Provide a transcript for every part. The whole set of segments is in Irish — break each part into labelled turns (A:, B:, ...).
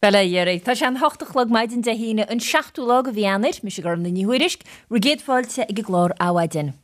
A: Bhuel, a Dhéaraí, tá sé an 8 a chlog maidin Dé hAoine, an seachtú lá de mhí Eanáir. Mise Gormfhlaith Ní Thuairisg, bhur gcéad fáilte ag an gclár Adhmhaidin.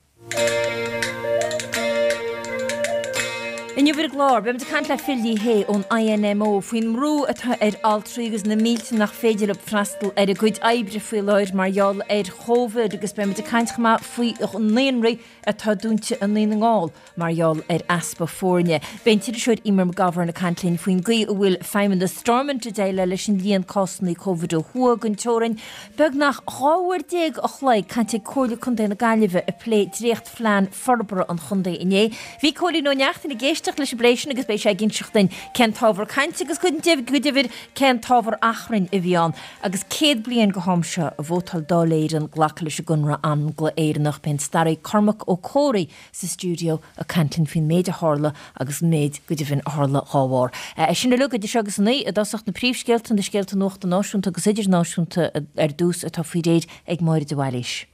A: Inniu ar an gclár, beimid ag caint le Phil Ní Sheaghdha ón INMO faoin mbrú atá ar altraí agus na mílte nach féidir leo freastal ar a gcuid oibre faoi láthair mar gheall ar Chóvid agus beimid ag caint chomh maith faoi naíonraí atá dúnta i nDún na nGall mar gheall ar easpa foirne. Beidh an t-iriseoir Eimear McGovern ag caint linn faoin gcaoi a bhfuil feidhmeannas Stormont ag déileáil leis an líon cásanna Covid ó thuaidh den teorainn. Beagnach 12 uair a chloig cainte ag Comhairle Contae na Gaillimhe ag plé dréachtphlean forbartha an chontae inné. Bhí Cóilín Ó Neachtain ag éisteacht leis an bplé sin agus beidh sé ag inseacht duinn cén t-ábhar cainte agus go deimhin cén t-ábhar achrainn a bhí ann. Agus 100 bliain go ham seo a vótáil Dáil Éireann glacadh leis an gConradh Angla-Éireannach, beidh an staraí Cormac Ó Comhraí sa stiúideo ag caint linn faoin méid a tharla agus an méid, go deimhin, a tharla dhá bharr. É sin uilig idir seo agus a 9, i dtosach na príomhscéalta, na scéalta nuachta náisiúnta agus idirnáisiúnta ar dtús atá faoi réir ag Máire de Bhailís.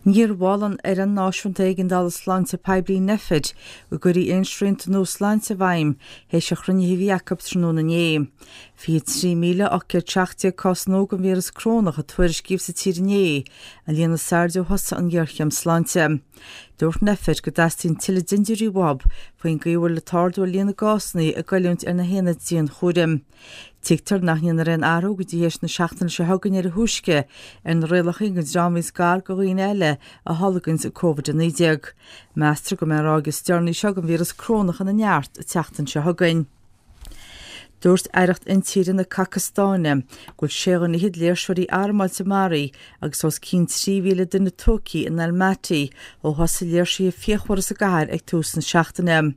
B: Níor mhol an Fhoireann Náisiúnta Éigeandála Sláinte Poiblí Nphet go gcuirfí aon srianta nua sláinte i bhfeidhm théis an chruinnithe a bhí acu tráthnóna inné. 23,817 cás nua den víreas corónach a tuairiscíodh sa tír inné, an líon is airde ó thosaigh an ghéarchéim sláinte. Dúirt Nphet go dteastaíonn tuilleadh dintiúirí uathu faoin gcaoi a bhfuil an t-ardú ar líon na gcásanna ag goilliúint ar na haonaid dianchúraim. Tuigtear nach ndéanfar aon athrú go dtí théis na seachtaine seo chugainn ar a thúisce ar na rialacha don dream a bhíonns gar do dhaoine eile a tholganns Covid-19. Meastar go mbeidh an ráig is deireanaí seo den víreas corónach ina neart an tseachtain seo chugainn. Dúirt Aireacht Intíre na Cacastáine go bhfuil sé dhuine fhichead léirseoirí armáilte maraithe agus os cionn 3,000 duine tógtha in Almaty ó thosaigh léirsithe fíochmhara sa gcathair ag tús na seachtaine.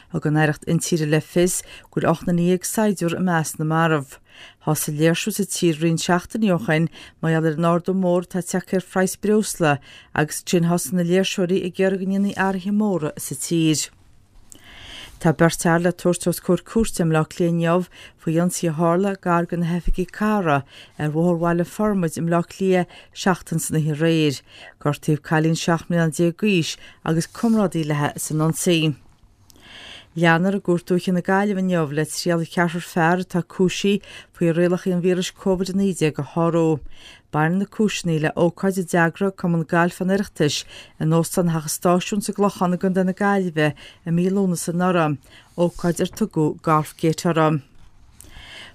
B: Thug an Aireacht Intíre le fios go bhfuil 18 saighdiúir i measc na marbh. Thosaigh léirsiú sa tír roinnt seachtainí ó shin mar gheall ar an ardú mór atá tagtha ar phraghas breosla agus ansin thosaigh na léirseoirí ag iarraidh go ndéanfaí athruithe móra sa tír. Tá beirt fhear le tabhairt os comhair cúirte i mBleá Cliath inniu faoi ionsaí a tharla gar do na hoifigí cathrach ar Bhóthar Bhaile Formaid i mBleá Cliath seachtain san oíche aréir. Gortaíodh cailín 17 mbliana d'aois agus comrádaí léi san ionsaí. Leanfar i gCúirt Dúiche na Gaillimhe inniu le triail cheathrar fear atá cúisithe faoi rialacha an víris Covid-19 a shárú. Baineann na cúiseanna le ócáid a d'eagraigh Cumann Gailf an Oireachtais in Óstán Theach an Stáisiúin sa gClochán i gContae na Gaillimhe i mí Lúnasa anuraidh, ócáid ar tugadh Golfgate uirthi.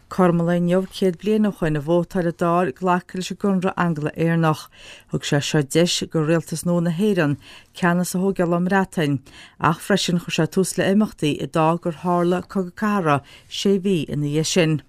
B: Cothrom an lae inniu 100 bliain ó shoin a vótáil an Dáil glacadh leis an gConradh Angla-Éireannach. Thug sé seo deis do rialtas nua na hÉireann ceannas a thógáil ón mBreatain, ach freisin chuir sé tús le imeachtaí a d'fhág gur tharla Cogadh Cathartha sé mhí ina dhiaidh sin.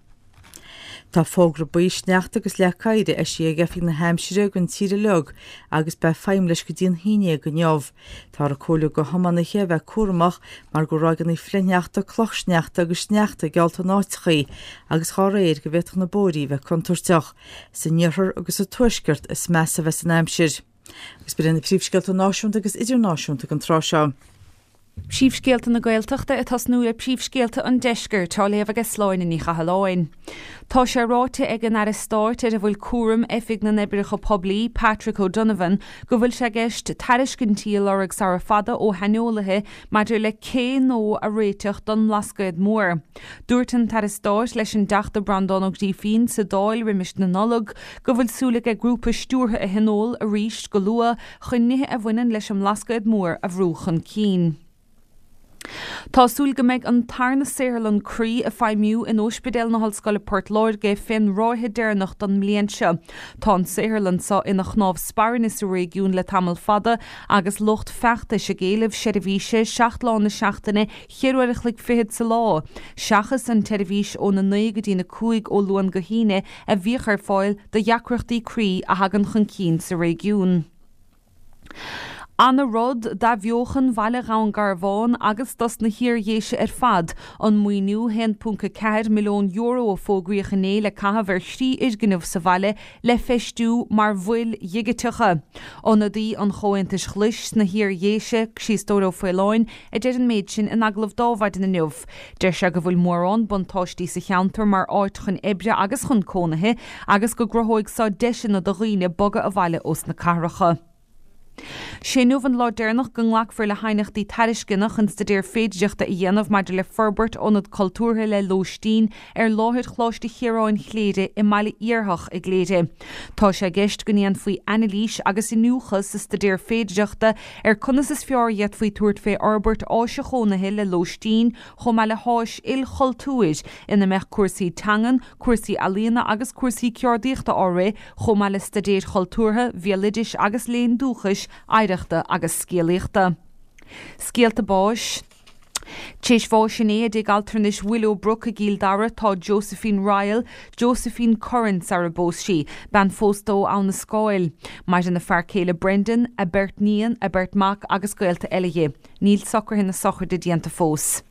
B: Tá fógra buí sneachta agus leac oighir eisithe ag Oifig na hAimsire don tír uilig agus beidh feidhm leis go dtí an haon dhéag inniu. Táthar ag comhairliú do thiománaithe a bheith cúramach mar go bhfuil ráigeanna flichshneachta, clochshneachta agus sneachta geallta in áiteachaí agus dhá réir go bhféadfadh na bóithrí a bheith contúirteach. San iarthar agus sa tuaisceart is measa a bheas an aimsir. Agus b'in iad na príomhscéalta náisiúnta agus idirnáisiúnta don tráth seo.
C: Príomhscéalta na Gaeltachta ag tosnú le príomhscéalta an Deiscirt, á léamh aige Sláine Ní Chathalláin. Tá sé ráite ag an Aire Stáit ar a bhfuil cúram Oifig na nOibreacha Poiblí, Patrick O'Donovan, go bhfuil sé i gceist tairiscintí a lorg sara fada ó shaineolaithe maidir le cé nua a réiteach don mBlascaod Mór. Dúirt an tAire Stáit leis an dTeachta Breandán Ó Grífín sa Dáil roimis na Nollag go bhfuil súil aige grúpa stiúrtha a thionól arís go luath chun nithe a bhaineann leis an mBlascaod Mór a bhrú chun cinn. Tá súil go mbeidh an tarna saotharlann croí ag feidhmiú in Óispidéal na hOllscoile Port Láirge fén ráithe deireanach don mbliain seo. Tá an saotharlann seo ina chnámh spairne sa réigiún le tamall fada agus lucht feachtais ag éileamh seirbhíse 7 lá na seachtaine, cheithre uair a chloig fichead sa lá, seachas an tseirbhís óna 9 go dtína 5 ó Luan go hAoine a bhíodh ar fáil do dheacrachtaí croí a thagann chun cinn sa réigiún. Ana rud d'athbheochan bhaile Dhún Garbhán agus dos na hIar-Dhéise ar fad an maoiniú €1.4 milliún a fógraíodh inné le caitheamh ar thrí fhoirgneamh sa bhaile le feistiú mar mhoil dhigiteacha. Ionadaí an Chomhaontais Ghlais sna hIar-Dhéise, Críostóir Ó Faoláin, a deir an méid sin in agallamh d'Adhmhaidin inniu. Deir sé go bhfuil mórán buntáistí sa cheantar mar áit chun oibre agus chun cónaithe agus go gcruthóidh seo deiseanna do dhaoine bogadh abhaile ós na cathracha. Sé inniu an lá deireanach go nglacfar le haighneachtaí tairisceana chun staidéar féidireachta a dhéanamh maidir le forbairt ionad cultúrtha le lóistín ar láthair Choláiste Chiaráin Chléire i mBaile Iarthach i gCléire. Tá sé i gceist go ndéanfaí anailís agus iniúchadh sa staidéar féidireachta ar conas is fearr a d'fhéadfaí tabhairt fé fhorbairt áise chónaithe le lóistín chomh maith le háis ilchultúir ina mbeadh cúrsaí teangan, cúrsaí ealaíona agus cúrsaí ceardaíochta á rith chomh maith le staidéir chultúrtha, bhéaloidis agus léinn dúchais, oidhreachta agus scéalaíochta. Scéalta báis. T'éis bháis inné i dtigh altranais Willowbrook i gCill Dara tá Josephine Ryle, Josephine Curran sara bpós sí, bean phósta ó Abha na Scáil. Maireann a fear céile Brendan, a beirt níon, a beirt mac agus gaolta eile dhi. Níl socruithe na sochraide déanta fós.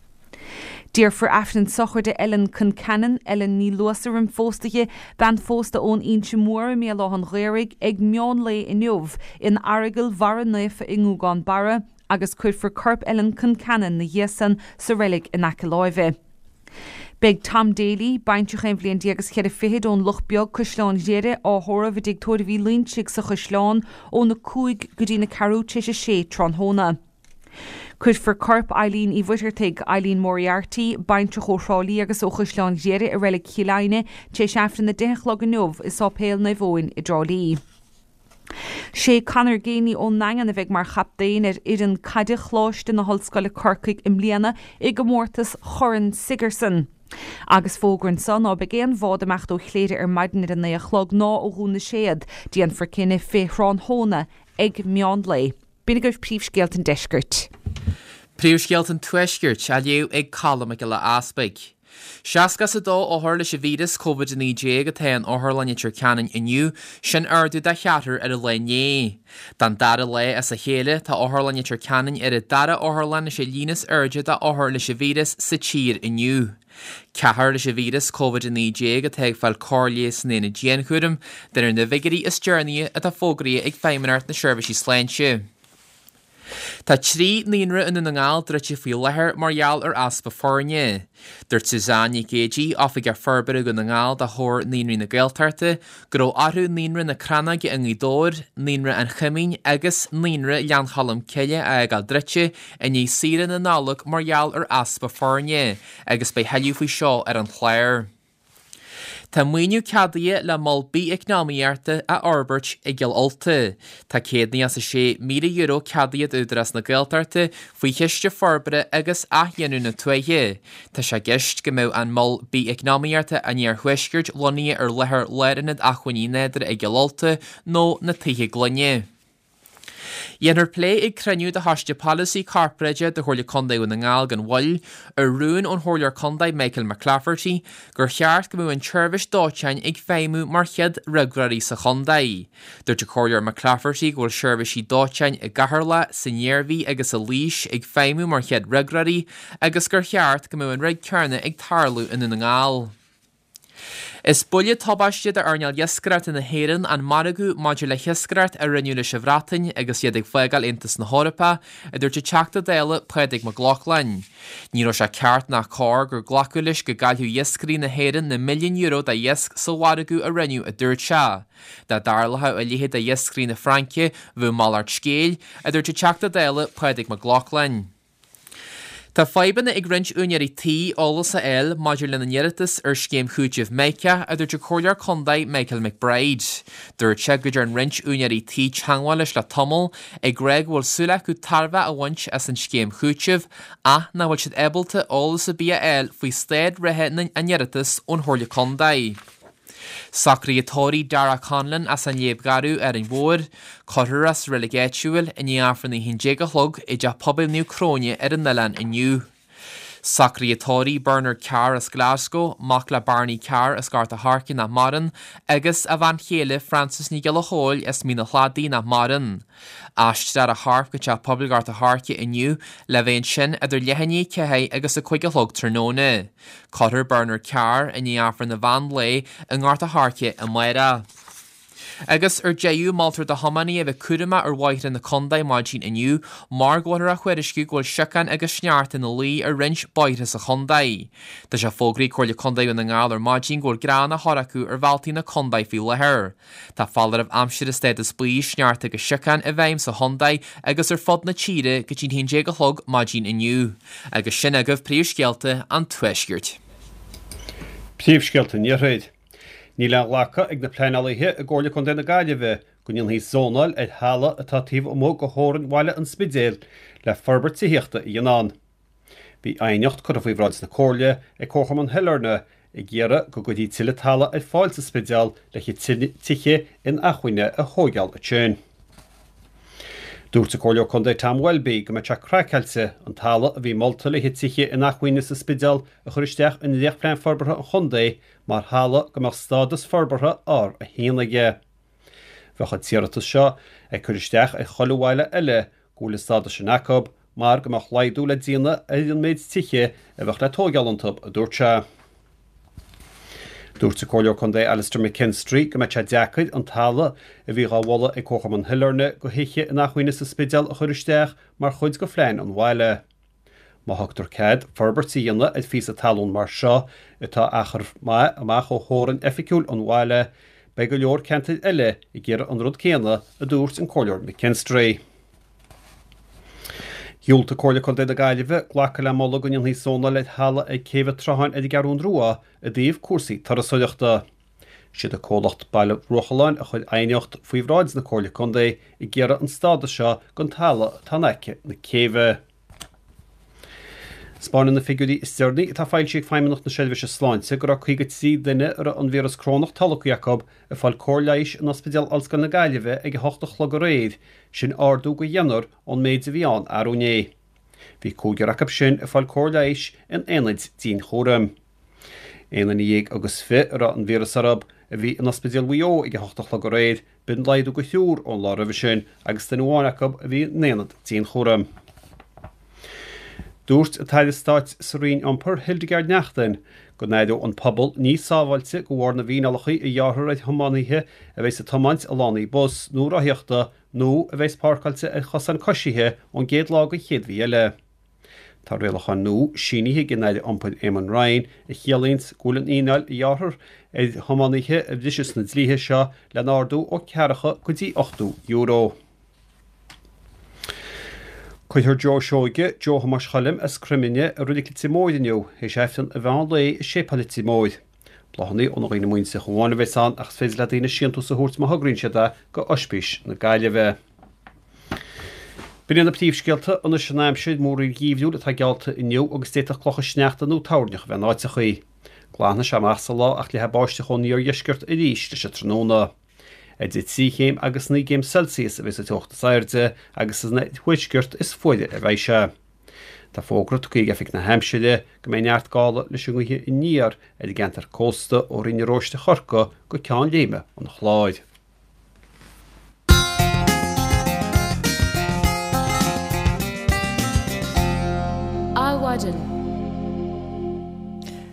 C: Déarfar Aifreann sochraide Ellen Concannon, Ellen Ní Luasa roim phósta dhi, bean phósta ón Inse Mhór i mBéal Átha'n Ghaorthaidh, ag meán lae inniu in Aireagal Bharra Naofa i nGúgán Barra agus cuirfear corp Ellen Concannon 'na dhiaidh san sa reilig in aice láimhe. Beidh Tom Daly, baintreach aon bhliain déag is cheithre fichid ón Loch Beag, Caisleán Ghriaire, á thórramh i dTigh Tórraimh Uí Loinsigh sa Chaisleán óna 5 go dtí na ceathrú tar éis a sé tráthnóna. Cuirfear corp Eileen Uí Mhuircheartaigh, Eileen Moriarty, baintreach ó Thrá Lí agus ó Chaisleán Ghriaire i Reilig Chill Aidhne tar éis Aifreann 10 a chlog inniu i Sáipéal Naomh Eoin i dTrá Lí. Sé Conor Geaney ón nDaingean a bheidh mar chaptaen ar fhoireann caide Choláiste na hOllscoile Corcaigh i mbliana i gcomórtas Chorn Sigerson. Agus fógra anso ná beidh aon bhád ag imeacht ó Chléire ar maidin ar a 9 a chlog ná ó Dhún na Séad. Déanfar cinneadh fé thráthnóna ag meán lae. B'in agaibh príomhscéalta an deiscirt.
D: Príomhscéalta an tuaiscirt á léamh ag Colm Mac Giolla Easpaig. 62 othar leis an víreas Covid-19 atá in Otharlann Leitir Ceanainn inniu, sin ardú de cheathrar ar an lá inné. Don dara lá as a chéile, tá Otharlann Leitir Ceanainn ar an dara otharlann leis an líon is airde d'othair leis an víreas sa tír inniu. Ceathrar leis an víreas Covid-19 atá ag fáil cóir leighis san aonad dianchúraim, de réir na bhfigiúirí is deireanaí atá fógraithe ag Feidhmeannacht na Seirbhísí Sláinte. Tá 3 naíonra i nDún na nGall druidte faoi láthair mar gheall ar easpa foirne. Dúirt Suzanne Nic Géidigh, Oifigeach Forbartha Dhún na nGall do Chomhar Naíonraí na Gaeltachta, go raibh orthu Naíonra na Crannóige i nGaoth Dobhair, Naíonra an Choimín agus Naíonra Ghleann Cholm Cille a fhágáil druidte i ndiaidh saoire na Nollag mar gheall ar easpa foirne agus beidh thuilleadh faoi seo ar an chlár. Tá maoiniú ceadaithe le mol bith-eacnamaíochta a fhorbairt i gCill Ulta. Tá €196,000 ceadaithe d'Údarás na Gaeltachta faoi Chiste Forbartha agus Athghiniúna na Tuaithe. Tá sé i gceist go mbeadh an mol bith-eacnamaíochta an Iarthuaiscirt lonnaithe ar láthair Lárionad Acmhainní Nádúrtha i gCill Ulta nó na Tithe Gloine. Dhéanfar plé ag cruinniú de Choiste Polasaí Corparáideach de Chomhairle Contae Dhún na nGall gan mhoill ar rún ón Chomhairleoir Contae Michael McClafferty gur cheart go mbeadh an tseirbhís dóiteáin ag feidhmiú mar chéad fhreagróirí sa chontae. Dúirt an Comhairleoir McClafferty go bhfuil seirbhísí dóiteáin i gCeatharlach, san Iarmhí agus i Laois ag feidhmiú mar chéad fhreagróirí agus gur cheart go mbeadh an rud céanna ag tarlú i nDún na nGall. Is buille tubaiste d'earnáil iascaireachta na hÉireann an margadh maidir le hiascaireacht a rinneadh leis an Bhreatain agus iad ag fágáil Aontas na hEorpa, a dúirt an Teachta Dála Pádraig Mac Lochlainn. Ní raibh sé ceart ná cóir gur glacadh leis go gcaillfeadh iascairí na hÉireann na milliúin euro de iasc sa mhargadh a rinneadh, a dúirt sé. Dá dtarlódh a leithéid d'iascairí na Fraince, bheadh malairt scéil, a dúirt an Teachta Dála Pádraig Mac Lochlainn. Tá fadhbanna ag roinnt úinéirí tí eolas a fháil maidir lena n-iarratas ar scéim chúitimh Mica, a dúirt an Comhairleoir Contae Michael McBride. Dúirt sé go dtearn roinnt úinéirí tí teagmháil leis le tamall ag rá go bhfuil súil acu tairbhe a bhaint as an scéim chúitimh ach nach bhfuil siad ábalta eolas ar bith a fháil faoi staid reatha a n-iarratas ón Chomhairle Contae. Socruithe tórraimh Darragh Conlon as an Léib Gharbh, Árainn Mhór. Cuirfear é sa reilig áitiúil i ndiaidh Aifreann a 11 a chlog i dTeach Pobail Naomh Cróine ar an oileán inniu. Socruithe tórraimh Bernard Carr as Glasgow, mac le Barney Carr as Gort a' Choirce nach maireann, agus a bhean chéile Frances Ní Ghiolla Chóill as Mín a' Chladaigh nach maireann. Aistreofar a chorp go Teach Pobail Ghort a' Choirce inniu le bheith ansin idir leath i ndiaidh 4 agus a 5 a chlog tráthnóna. Cuirfear Bernard Carr i ndiaidh Aifreann an mheán lae i nGort a' Choirce amárach. Agus ar deireadh, moltar do thiománaithe a bheith cúramach ar bhóithre na contae maidin inniu mar go bhfuiltear á thuairisciú go bhfuil siocán agus sneachta ina luí ar roinnt bóithre sa chontae. Tá sé fógraithe ag Comhairle Contae Dhún na nGall ar maidin go bhfuil grean á chur acu ar bhealtaí na contae faoi láthair. Tá foláireamh aimsire stádas buí, sneachta agus siocán i bhfeidhm sa chontae agus ar fud na tíre go dtí an 11 a chlog maidin inniu. Agus sin agaibh príomhscéalta an Tuaiscirt.
E: Príomhscéalta an Iarthair. Níl á ghlacadh ag na pleanálaithe i gComhairle Contae na Gaillimhe go ndéanfaí zónáil ar thalamh atá taobh amuigh de theorainn bhaile an Spidéil le forbairt tithíochta a dhéanamh ann. Bhí aighneacht curtha faoi bhráid na Comhairle ag Comharchumann Shailearna ag iarraidh go gcuirfí tuilleadh talaimh ar fáil sa Spidéal le tithe inacmhainne a thóigeáil ansin. Dúirt an Comhairleoir Contae Tom Welby go mbeadh sé craiceáilte an talamh a bhí molta le haghaidh tithe inacmhainne sa Spidéal a chur isteach i ndréachtphlean forbartha an chontae mar thalamh go mbeadh stádas forbartha R1 aige. Bheadh an t-iarratas seo ag cur isteach ar chuile bhaile eile go bhfuil an stádas sin acu mar go mbeadh laghdú le déanamh ar an méid tithe a bheadh le tóigeáil iontu, a dúirt sé. Dúirt an Comhairleoir Contae Alastair McKinstry go mbeadh sé deacair an talamh a bhí dhá mholadh ag Comharchumann Shailearna do thithe inacmhainne sa Spidéal a chur isteach mar chuid de phlean an bhaile. Má thugtar cead forbairt a dhéanamh ar phíosa talún mar seo, atá achar maith amach ó theorainn oifigiúil an bhaile, beidh go leor ceantair eile ag iarraidh an rud céanna, a dúirt an Comhairleoir McKinstry. Dhiúltaigh Comhairle Contae na Gaillimhe glacadh le moladh go ndéanfaí zónáil ar thalamh ag Céibh an tSrutháin ar an gCeathrún Rua i dtaobh cúrsaí turasóireachta. Siad an comhlacht Baile Bhruachalláin a chuir aighneacht faoi bhráid na Comhairle Contae ag iarraidh an stádas seo don talamh atá in aice na céibhe. 'Spáineann na figiúirí is deireanaí atá foilsithe ag Feidhmeannacht na Seirbhíse Sláinte go raibh 53 duine a raibh an víreas corónach tolgtha acu ag fáil cóir leighis in Ospidéal Ollscoile na Gaillimhe ag 8 a chlog aréir, sin ardú de dheichniúr ón méid a bhí ann arú inné. Bhí cúigear acu sin ag fáil cóir leighis in aonaid dianchúraim. Aon duine dhéag agus fi a raibh an víreas orthu a bhí in Ospidéal Mhaigh Eo ag 8 a chlog aréir, B'in laghdú de thriúr ón lá roimhe sin agus duine amháin acu a bhí in aonad dianchúraim. Dúirt an tAire Stáit sa Roinn Iompair, Hildegarde Naughton, go n-aireoidh an pobal níos sábháilte de bharr na bhfíneálacha a ghearrfar ar thiománaithe a bheas ag tiomáint i lánaí bus nó rothaíochta nó a bheas páirceáilte ar chosáin coisithe ón gcéad lá den chéad mhí eile. Tá rialacháin nua sínithe ag an Aire Iompair Eamon Ryan a chiallaíonns go bhfuil an fhíneáil a ghearrfar ar thiománaithe a bhriseas na dlíthe seo le n-ardú ó ceathracha go dtí €80. Cuirfear Joe Seoige, Joe Thomáis Choilm as Croimine i Reilig Leitir Móir inniu, théis Aifreann an mheán lae i Séipéal Leitir Móir. Bláthanna ó na dhaoine muinteartha amháin a bheas ann ach is féidir le daoine síntús a thabhairt má thograíonn siad é go Oispís na Gaillimhe. B'in iad na príomhscéalta, anois an aimsir, múraíl gheimhriúil atá geallta inniu agus d'fhéadfadh clocha sneachta nó toirneach a bheith in áiteachaí. Glanfaidh sé amach sa lá ach leathfaidh báisteach ón iardheisceart arís leis an tráthnóna. Idir 3 chéim agus 9 gcéim Celsius a bheas an teocht is airde agus san oirthuaisceart is fuaire a bheidh sé. Tá fógra tugtha ag Oifig na hAimsire go mbeidh neart gála leis an ngaoth aniar ar an gceantar cósta ó Rinn na Róiste Chorcaí go Ceann Léime an Chláir.
A: Adhmhaidin.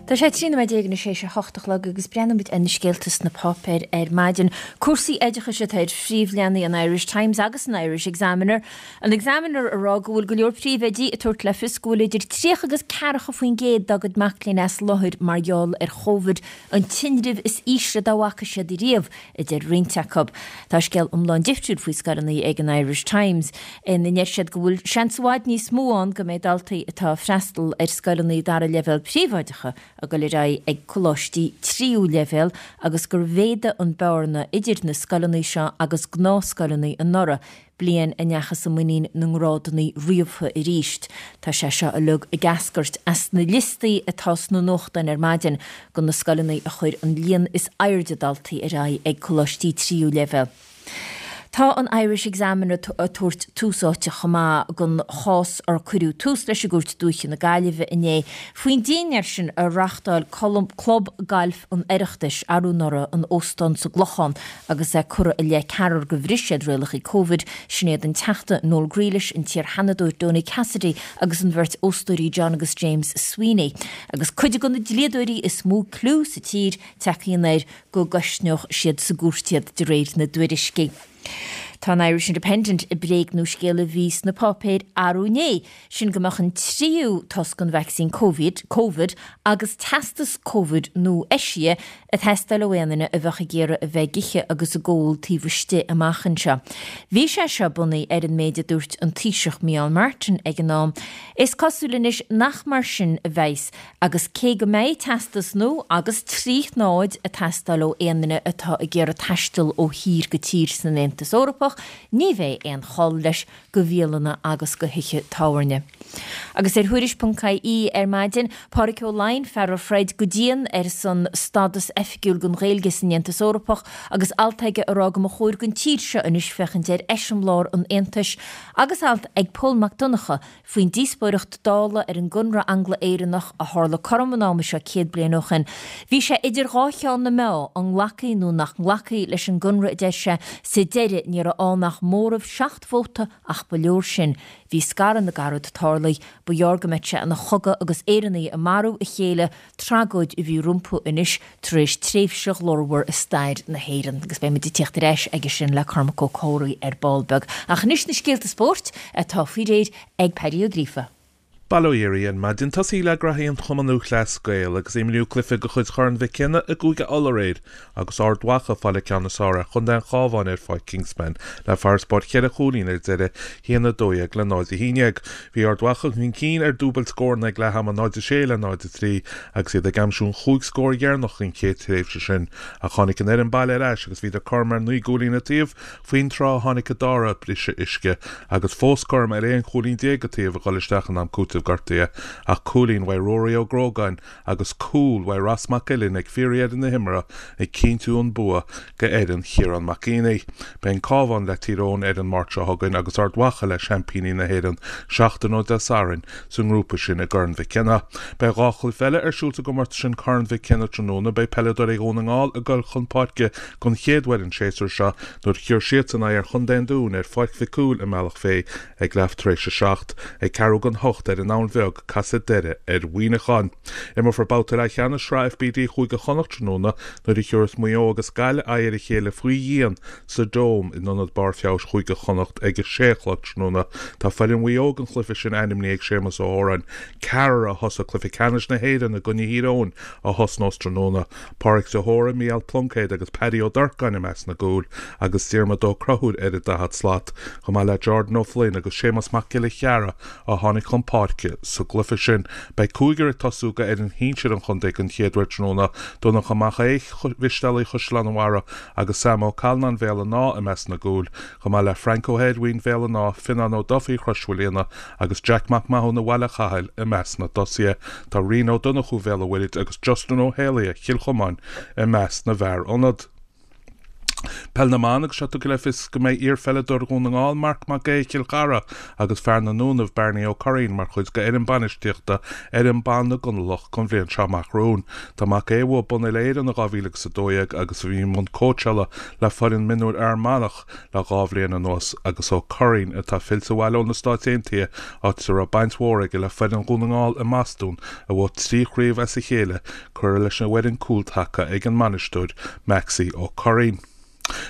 A: Tá sé 13 nóiméad anois théis a hocht a chlog agus breathnóimid ar na scéalta sna páipéir ar maidin. Cúrsaí oideachais atá ar phríomhleathanaigh an Irish Times agus an Irish Examiner. An Examiner ag rá go bhfuil go leor príomhoidí ag tabhairt le fios go bhfuil idir 30 agus 40% dá gcuid mac léinn as láthair mar gheall ar Chóvid, an tinreamh is ísle dá bhfaca siad riamh. a deir roinnt acu. Tá scéal iomlán difriúil faoi scoileanna ag an Irish Times, ina ndeir siad go bhfuil seans i bhfad níos mó ann go mbeidh daltaí atá ag freastal ar scoileanna dara leibhéal príobháideacha ag dul ar aghaidh ag coláistí tríú leibhéal agus gur mhéadaigh an bearna idir na scoileanna seo agus gnáthscoileanna anuraidh bliain a ndeachthas i muinín na ngrádanna ríomhtha arís. Tá sé seo uilig ag eascairt as na liostaí atá sna nuachtáin ar maidin de na scoileanna a chuir an líon is airde daltaí ar aghaidh ag coláistí tríú leibhéal. Tá an Irish Examiner ag tabhairt tús áite chomh maith don chás ar cuireadh tús leis i gCúirt Dúiche na Gaillimhe inné faoin dinnéar sin a reáchtáil Club Gailf an Oireachtais arú anuraidh in óstán sa gClochán agus é curtha i leith ceathrar gur bhris siad rialacha Covid, sin iad an Teachta Noel Grealish, an t-iar-Sheanadóir Donie Cassidy agus an bheirt óstóirí John agus James Sweeney. Agus cuid de na dlíodóirí is mó clú sa tír tagtha anoir go gceistneodh siad sa gcúirt iad, de réir na dtuairiscí. Tá an Irish Independent ag bréagnú scéal a bhí sna páipéir arú inné, sin go mbeadh an tríú tost den vacsaín Covid, Covid agus teastas Covid nua-eisithe ag teastáil ó aon duine a bheadh ag iarraidh a bheith ag ithe agus ag ól taobh istigh amach anseo. Bhí sé seo bunaithe ar an méid a dúirt an Taoiseach Micheál Martin ag an am. Is cosúil anois nach mar sin a bheas Agus cé go mbeidh teastas nua agus 3 shnáid ag teastáil ó aon duine atá ag iarraidh taisteal ó thír go tír san Aontas Eorpach, ní bheidh aon chol leis go bhialanna agus go thithe tábhairne. Agus ar Thuairisc.ie ar maidin, Pádraic Ó Laighin, fear a throid go dian ar son stádas oifigiúil don Ghaeilge san Aontas Eorpach agus alt aige ag rá go mba chóir don tír seo anois féachaint ar eiseamláir an Aontais agus alt ag Pól Mac Donncha faoin díospóireacht Dála ar an gConradh Angla-Éireannach a tharla cothrom an ama seo 100 bliain ó shin. Bhí sé idir dhá cheann na meá, an nglacfaí nó nach nglacfaí leis an gConradh a deir sé, sa deireadh ní raibh ann ach móramh 7 vóta ach ba leor sin. Bhí scaradh na gcarad tarlaithe, ba ghearr go mbeadh sé ina chogadh agus Éireannaigh ag marú a chéile, tragóid a bhí rompu anois tar éis tréimhse ghlórmhar i stair na hÉireann. Agus beidh muid ag tíocht ar ais aige sin le Cormac Ó Comhraí ar ball beag. Ach anois na scéalta spóirt atá faoi réir ag Paddy Ó Gríofa.
F: Bail ó Dhia oraibh ar maidin. Tosaí le graithí an Chumann Lúthchleas Gael agus imríodh cluiche de chuid Chorn Mhic Cionnaith i gCúige Uladh aréir agus Ard Mhacha ag fáil an ceann is fearr ar chontae an Chabháin ar Pháirc Kingspan le farasbarr cheithre chúilín ar deireadh, 1-12 le 0-11. Bhí Ard Mhacha chun cinn ar dúbailt scóranna ag leath ama, 0-6 le 0-3, agus iad ag aimsiú an chúig scór dheireanach den chéad tréimhse sin. Ach tháinig an fhoireann baile ar ais agus bhíodar cothrom ar naoi gcúilín an taobh faoin tráth a tháinig an dara briseadh uisce agus fós cothrom ar aon chúilín déag an taobh ag dul isteach in am cúitimh gortaithe ach cúilín uaidh Ruairí Ó Grógáin agus cúl uaidh Ross Mac Uilinn ag fíordheireadh na himeartha ag cinntiú an bua go fhoireann Chiarán Mac Éanaigh. Beidh an Cabhán le Tír Eoghain ar an Máirt seo chugainn agus Ard Mhacha le seaimpíní na hÉireann seachtain ó Dé Sathairn sa ngrúpa sin i gCorn Mhic Cionnaith. Beidh 2 chluiche eile ar siúl sa gcomórtas sin Corn Mhic Cionnaith tráthnóna. Beidh peileadóirí Dhún na nGall ag dul chun páirce don chéad uair an séasúr seo nuair a thiúrfaidh siadsan aghaidh ar Chontae an Dúin ar Pháirc Mhic Cumhaill i mBealach Féich Ag leath tar éis a 7, ag ceathrú don hocht ar an Abhainn Bheag, casfaidh Doire ar Mhuineachán. Imreofar babhta leathcheannais Shraith FBD Chúige Chonnacht tráthnóna nuair a thiúrfas Maigh Eo agus Gaillimh aghaidh ar a chéile faoi dhíon sa Dome in Ionad Barr Feabhais Chúige Chonnacht ag a sé a chlog tráthnóna. Tá foireann Mhaigh Eo don chluiche sin ainmnithe ag Séamus Ó hÓráin, ceathrar a thosaigh cluiche ceannais na hÉireann i gcoinne Thír Eoghain a thosnós tráthnóna. Pádraic de hÓra, Mícheál Pluincéad agus Paddy Ó Durcáin i measc na gcúl agus Diarmuid Ó Conchúir ar an daichead slat, chomh maith le Jordan Ó Floinn agus Séamus Mac Giolla Chearra a tháinig chun páirce sa gcluiche sin. Beidh cúigear ag tosú go fhoireann shinsir an chontae den chéad uair tráthnóna, Donncha Mac Aodha, Mhisteálaigh Chaisleán an Bharraigh agus Sam Ó Calláin Bhéal an Átha i measc na gcúl, chomh maith le Frank Ó hEirmhín Bhéal an Átha, Fionnán Ó Dufaigh Chrois Mhaoilíona agus Jack Mac Mathúna Bhaile Chathail i measc na dtosaithe. Tá Rian Ó Donnchú Bhéal an Mhuirthid agus Justin Ó hÉalaithe Chill Chomáin i measc na bhfear ionad. Peil na mBan agus seo tugtha le fios go mbeidh iar-pheileadóir Dhún na nGall Marc Mac Aodha Chill Chartha agus fear na nDúnaibh Bearnaí Ó Curraoin mar chuid de fhoireann bainistíochta fhoireann ban na gConallach don bhliain seo amach romhainn. Tá Mac Aodha a bhuaigh bonn Uile-Éireann in 2012 agus a bhí i mbun cóitseála le foireann mionúir Fhear Manach le 2 bhliain anuas agus Ó Curraoin atá fillte abhaile ó na Stáit Aontaithe áit a raibh baint mhór aige le foireann Dhún na nGall i mBostún a bhuaigh 3 chraobh as a chéile curtha leis an bhfoireann cúltaca ag an mbainisteoir Maxie Ó Curraoin.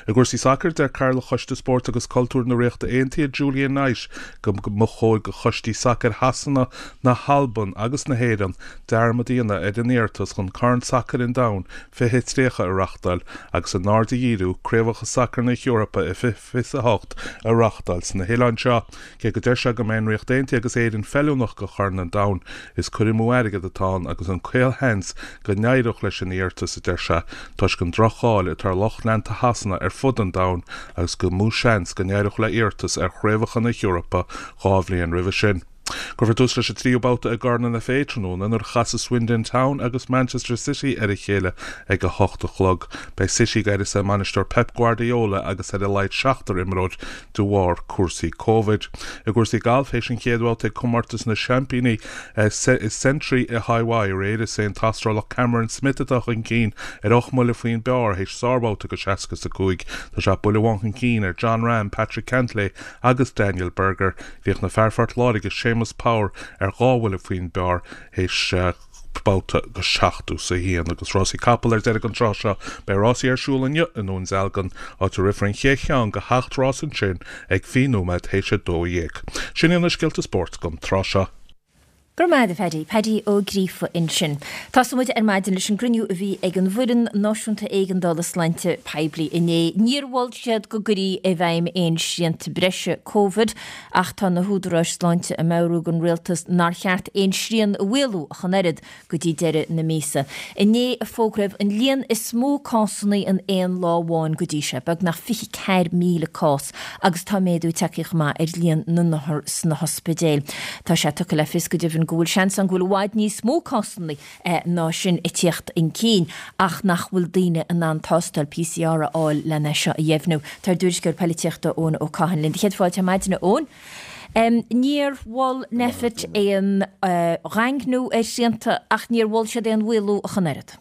F: I gcúrsaí sacair, deir Cathaoirleach Choiste Spóirt agus Cultúir na Ríochta Aontaithe, Julian Knight, go mba chóir do choistí sacair Shasana, na hAlban agus na hÉireann dearmad a dhéanamh ar an iarratas chun Corn Sacair an Domhain 2030 a reáchtáil agus a n-aird a dhíriú Craobhacha Sacair na hEorpa i 2028 a reáchtáil sna hoileáin seo. Cé go deir sé go mbeidh an Ríocht Aontaithe agus Éirinn feiliúnach do Chorn an Domhain, is cur amú airgid atá ann agus an caolsheans go n-éireodh leis an iarratas, a deir sé, toisc an droch-cháil atá ar lucht leanta Shasana ar fud an domhain agus gur mó seans go n-éireodh le hiarratas ar Chraobhacha na hEorpa 2 bhliain roimhe sin. Cuirfear tús leis an tríú babhta i gCorn an FA tráthnóna nuair a chasfaidh Swindon Town agus Manchester City ar a chéile ag a hocht a chlog. Beidh City ag áireamh a mbainisteoir Pep Guardiola agus ar a laghad seachtar imreoir de bharr cúrsaí Covid. I gcúrsaí gailf, théis an chéad bhabhta ag Comórtas na Seaimpíní Sentry i Haváí aréir, is é an tAstrálach Cameron Smith atá chun cinn ar ocht mbuille faoin bpar théis sárbhabhta de 65. Tá sé buille amháin chun cinn ar Jon Rahm, Patrick Cantlay agus Daniel Berger. Bhíodh na fear Phort Láirge, Séamus Power, ar dhá bhuille faoin bpar théis babhta de 71. Agus rásaí capall ar deireadh an tráth seo. Beidh rásaí ar siúl inniu i nDún Dealgan, áit a rithfear an chéad cheann de sheacht rás ansin ag 20 nóiméad théis 12. Sin iad na scéalta spóirt don tráth seo.
A: Go raibh maith agat a Phaddy. Paddy Ó Gríofa ansin. Tosóidh muid ar maidin leis an gcruinniú a bhí ag an bhFoireann Náisiúnta Éigeandála Sláinte Poiblí inné. Níor mhol siad go gcuirfí i bhfeidhm aon srianta breise Covid ach tá na húdaráis sláinte ag meabhrú don rialtas nár cheart aon srian a mhaolú ach an oiread go dtí deireadh na míosa. Inné a fógraíodh an líon is mó cásanna in aon lá amháin go dtí seo, beagnach 24,000 cás, agus tá méadú tagtha chomh maith ar líon na n-othar sna hospidéil. Tá sé tugtha le fios go deimhin go bhfuil seans ann go bhfuil i bhfad níos mó cásanna ná sin ag tíocht chun cinn ach nach bhfuil daoine in ann tástáil PCR a fháil lena seo a dheimhniú. Tá ár dtuairisceoir poilitíochta Eoin Ó Catháin linn. Céad fáilte ar maidin, a Eoin. Níor mhol Nphet aon dhaingniú ar shrianta ach níor mhol siad aon mhaolú ach an oiread.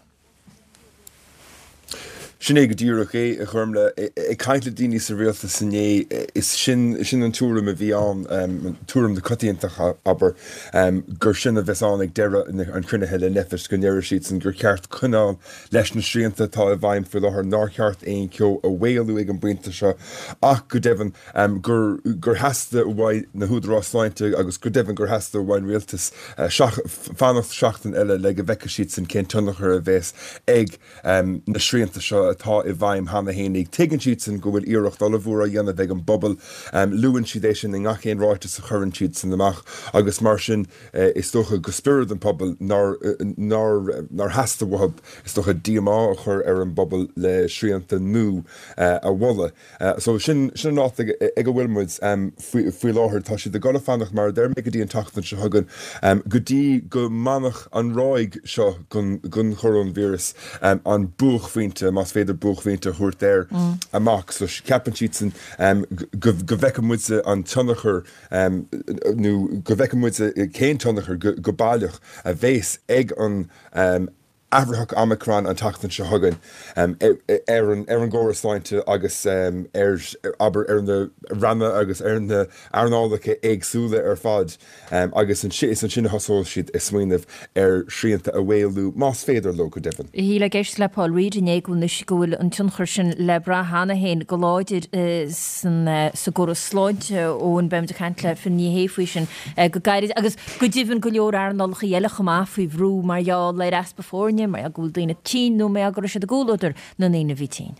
G: Sin é go díreach é, a Ghormlaith. Ag caint le daoine sa rialtas inné, is sin sin an tuairim a bhí ann, tuairim na coitiantachta, abair, gur sin a bheas ann ag deireadh an chruinnithe le Nphet, go ndéarfaidh siadsan gur cheart coinneáil leis na srianta atá i bhfeidhm faoi láthair, nár cheart aon cheo a mhaolú ag an bpointe seo ach, go deimhin, gur gur theastaigh uaidh na húdaráis sláinte agus go deimhin gur theastaigh uaidh an rialtas fanacht seachtain eile le go bhfeicfidh siadsan cén tionchar a bheas ag na srianta seo atá i bhfeidhm cheana fhéinig. Tuigeann siadsan go bhfuil iarracht ollmhór á dhéanamh ag an bpobal. Luann siad é sin i ngach aon ráiteas a chuireann siadsan amach agus mar sin is dócha go spiorad an phobail nár nár nár theastaigh uathu is dócha díomá a chur ar an bpobal le srianta nua a mholadh. So sin sin an áit ag ag a bhfuil muid faoi faoi láthair. Tá siad ag dul a fanacht mar a deir mé go dtí an tseachtain seo chugainn go dtí go mbainfeadh an ráig seo den den choróinvíreas an buaicphointe, más féidir buaicphointe a thabhairt air, amach. So ceapann siadsan go go bhfeicfidh muid an tionchar nó go bhfeicfidh muid cén tionchar go go baileach a bhéas ag an athraitheach Omicron an tseachtain seo chugainn ar an ar an gcóras sláinte agus ar, abair, ar na ranna agus ar na hearnálacha éagsúla ar fad agus is ansin a thosóidh siad ag smaoineamh ar shrianta a mhaolú, más féidir leo, go deimhin.
A: Shílfeá ag éisteacht le Paul Reid inné go bhfuil go bhfuil an tionchar sin le brath cheana féin go láidir san sa gcóras sláinte Eoin, beimid ag caint le Finn Ní Shé faoi sin go gairid agus go deimhin go leor earnálacha eile chomh maith faoi bhrú mar gheall ar easpa foirne, mar gheall go bhfuil daoine tinn nó mar gheall go raibh siad i gcomhluadar na ndaoine a bhí tinn.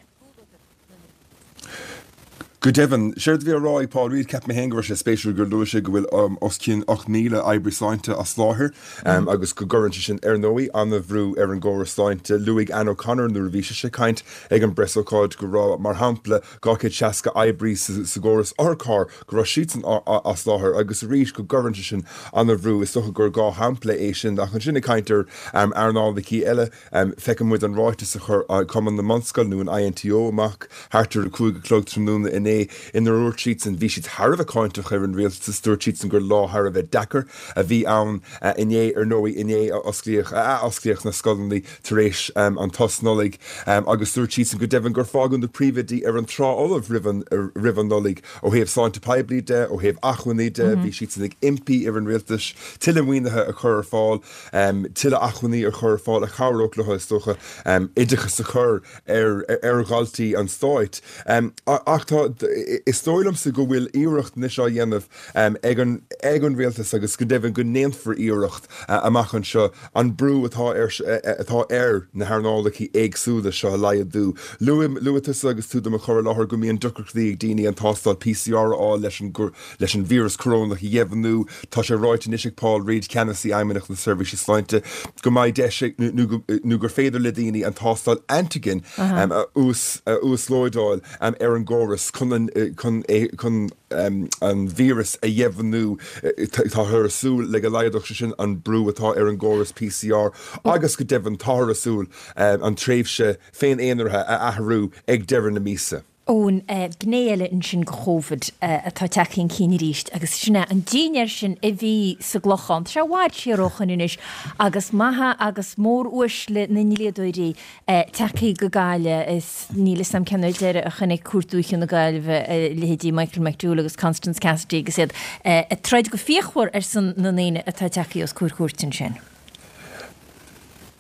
G: Go deimhin, séard a bhí á rá ag Paul Reid, cheap mé féin go raibh sé spéisiúil gur luaigh sé go bhfuil os cionn 8,000 oibrí sláinte as láthair agus go gcuireann sé sin, ar ndóigh, an-bhrú ar an gcóras sláinte. Luaigh Anne O'Connor nuair a bhí sise ag caint ag an bpreasócáid go raibh, mar shampla, 260 oibrí sa gcóras otharcharr go raibh siadsan as láthair agus arís go gcuireann sé sin an-bhrú, is dócha gur 2 shampla é sin ach ansin ag caint ar earnálacha eile, feiceann muid an ráiteas a chuir Cumann na mBunscol nó an INTO amach thart ar a 5 a chlog tráthnóna inné inar dhúirt siadsan, bhí siad thar a bheith cáinteach ar an rialtas, dúirt siadsan gur lá thar a bheith deacair a bhí ann inné, ar ndóigh inné a osclaíodh, a ath-osclaíodh na scoileanna tar éis an tsos Nollaig agus dúirt siadsan go deimhin gur fágadh na príomhoidí ar an trá fholamh roimh an Nollaig ó thaobh sláinte poiblí de, ó thaobh acmhainní de, bhí siadsan ag impí ar an rialtas tuilleadh maoinithe a chur ar fáil, tuilleadh acmhainní a chur ar fáil a chabhródh leo, is dócha, oideachas a chur ar dhaltaí an stáit. Ach tá, is dóigh liomsa go bhfuil iarracht anois á dhéanamh ag an ag an rialtas agus go deimhin go ndéanfar iarracht amach anseo an brú atá ar atá ar na hearnálacha éagsúla seo a laghdú. Luaigh luaigh tusa agus tú do mo chur i láthair go mbíonn deacrachtaí ag daoine an tástáil PCR a fháil leis an leis an víreas corónach a dheimhniú. Tá sé ráite anois ag Paul Reid, Ceannasaí Fheidhmeannacht na Seirbhíse Sláinte, go mbeidh deis ag nó go nó gur féidir le daoine an tástáil antigen a uas a uaslódáil ar an gcóras chun. chun an chun é chun an víreas a dheimhniú. Táthar ag súil le go laghdódh sé sin an brú atá ar an gcóras PCR agus go deimhin táthar ag súil an tréimhse féin-aonaraithe a athrú ag deireadh na míosa.
A: Eoin, gné eile ansin de Chóvid atá tagtha chun cinn arís agus sin é an dinnéar sin a bhí sa gClochán. Tá sé i bhfad siar ó shoin anois agus maithe agus mór-uaisle na ndlíodóirí tagtha go Gaillimh is níl 'fhios a'm cén uair deireadh a chonaic Cúirt Dúiche na Gaillimhe a leithéidí Michael McDowell agus Constance Cassidy agus iad ag troid go fíochmhar ar son na ndaoine atá tagtha os comhair cúirte ansin.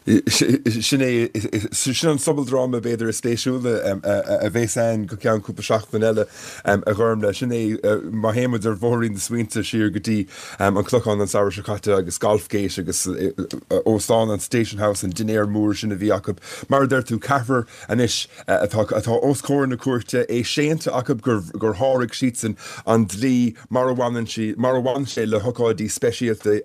G: Sin é, sin an sobaldráma b'fhéidir is spéisiúla a bheas ann go ceann cúpla seachtain eile, a Ghormlaith. Sin é, má théann muid ar bhóithrín na smaointe siar go dtí an Clochán an samhradh seo caite agus Golfgate agus óstán an Station House, an dinnéar mór sin a bhí acu. Mar a deir tú, ceathrar anois atá atá os comhair na cúirte, é séanta acu gur gur sháraigh siadsan an dlí mar a bhaineann sí, mar a bhain sé le hócáidí speisialta.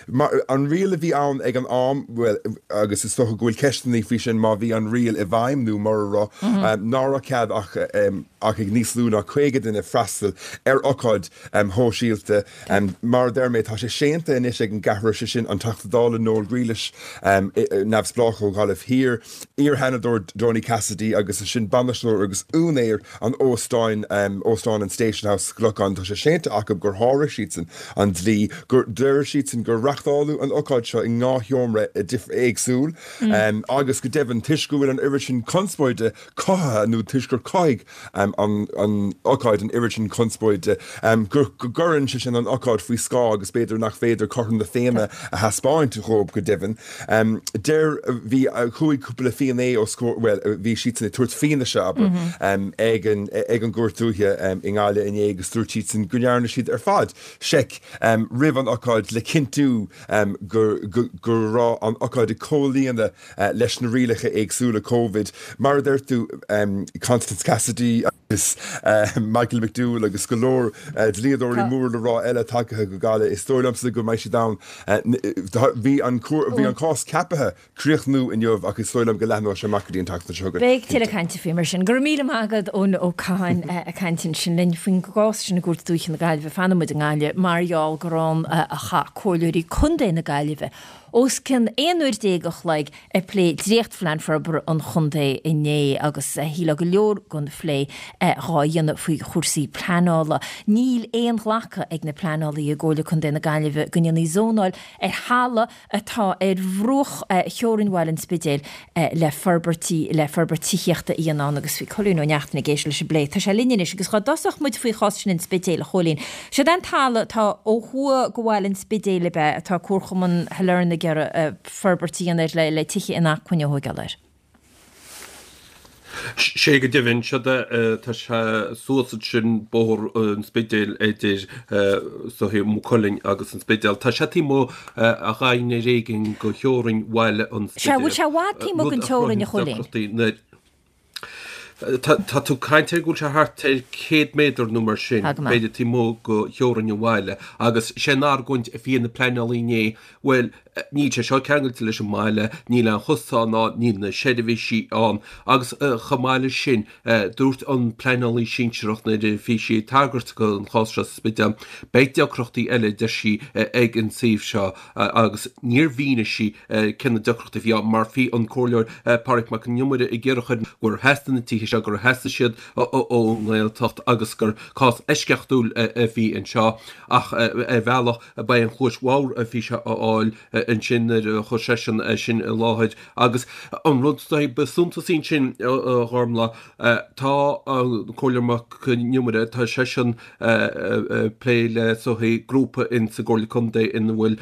G: Mar, an riail a bhí ann ag an am, bhuel, agus is dócha go bhfuil ceisteanna faoi sin má bhí an riail i bhfeidhm nó mura raibh, ná raibh cead ach ach ag níos lú ná 50 duine freastal ar ocáid shóisialta. Mar a deir mé, tá sé séanta anois ag an gceathrar, sé sin an Teachta Dála Noel Grealish, neamhspleách ó Ghaillimh Thiar, iar-Sheanadóir Donie Cassidy agus ansin bainisteoir agus úinéir an óstáin, Óstán an Station House sa Chlochán. Tá sé séanta acu gur sháraigh siadsan an dlí, gur, deir siadsan gur reachtáladh an ocáid seo i ndhá sheomra éagsúil agus go deimhin toisc go bhfuil an oiread sin conspóide cothaithe nó toisc gur chothaigh an ócáid an oiread sin conspóide, go gcuireann sé sin an ócáid faoi scáth agus b'fhéidir nach féidir cothrom na Féinne a thaispeáint dhóibh go deimhin. Deir, bhí, chuaigh cúpla finné os comhair, bhuel, bhí siadsan ag tabhairt fianaise, abair, ag an, ag an gCúirt Dúiche i nGaillimh inné agus dúirt siadsan go ndearna siad ar fad seic roimh an ócáid le cinntiú go, go, go raibh an ócáid ag comhlíonadh leis na rialacha éagsúla Covid. Mar a deir tú, Constance Cassidy agus Michael McDowell agus go leor dlíodóirí mór le rá eile tagtha go Gaillimh, is dóigh liomsa go mbeidh siad ann. Bhí an bhí an cás ceaptha críochnú inniu ach is dóigh liom go leathnóidh sé amach go dtí an tseachtain seo chugainn.
A: Beidh tuilleadh cainte faoi mar sin. Go raibh míle maith agat Eoin Ó Catháin ag caint ansin linn faoin gcás sin i gCúirt Dúiche na Gaillimhe. Fanfaidh muid i nGaillimh mar gheall gur ann a chaith comhairleoirí contae na Gaillimhe os cionn 11 uair a chloig ag plé dréachtphlean forbartha an chontae inné agus shílfeá go leor den phlé dhá dhéanamh faoi chúrsaí pleanála. Níl aon ghlacadh ag na pleanálaithe i gComhairle Contae na Gaillimhe go ndéanfaí zónáil ar thalamh atá ar bhruach theorainn bhaile an Spidéil le forbairtí le forbairt tithíochta a dhéanamh ann agus bhí Cóilín Ó Neachtain ag éisteacht leis an bplé. Tá sé linn anois agus dhá dtosódh muid faoi chás sin an Spidéil, a Chóilín. Siod é an talamh atá ó thuaidh go bhaile an Spidéil ab ea atá Comharchumann Shailearna ag iarraidh forbairt a dhéanamh air le le tithe inacmhainne a thóigeáil air.
H: Sé go deimhin, siod é, tá sé suas ansin Bóthar an Spidéil idir so Maigh Cuilinn agus an Spidéal. Tá sé taobh amuigh a ghainne ar éigin go theorainn bhaile an
A: Sea, bhfuil sé i bhfad taobh amuigh den teorainn, a Chóilín?
H: Tá tú ag caint ar go bhfuil sé thart ar 100 méadar nó mar sin,
A: Tá go maith.
H: b'fhéidir taobh amuigh go theorainn an bhaile agus sé an argóint a bhí ag na pleanálaí inné, bhuel, níl sé seo ceangailte leis an mbaile, níl aon chosán ann, níl na seirbhísí ann agus chomh maith leis sin, Dúirt an pleanálaí sinsearach nuair a bhí sí ag tagairt don chás seo sa Spidéal, beidh deacrachtaí eile, a deir sí, ag an suíomh seo agus níor mhínigh sí cé na deacrachtaí a bhí ann mar bhí an Comhairleoir Pádraig Mac Con Iomaire ag iarraidh chur gur theastaigh na tithe seo, gur theastaigh siad ón nGaeltacht agus gur cás eisceachtúil a bhí anseo ach ar bhealach ba é an chluais bhodhar a bhí sé a fháil ansin nuair a chuir seisean é sin i láthair. Agus an rud ba suntasaí ansin, a Ghormlaith, tá an Comhairleoir Mac Con Iomaire, tá seisean ag plé le soithí grúpa in sa gComhairle Contae ina bhfuil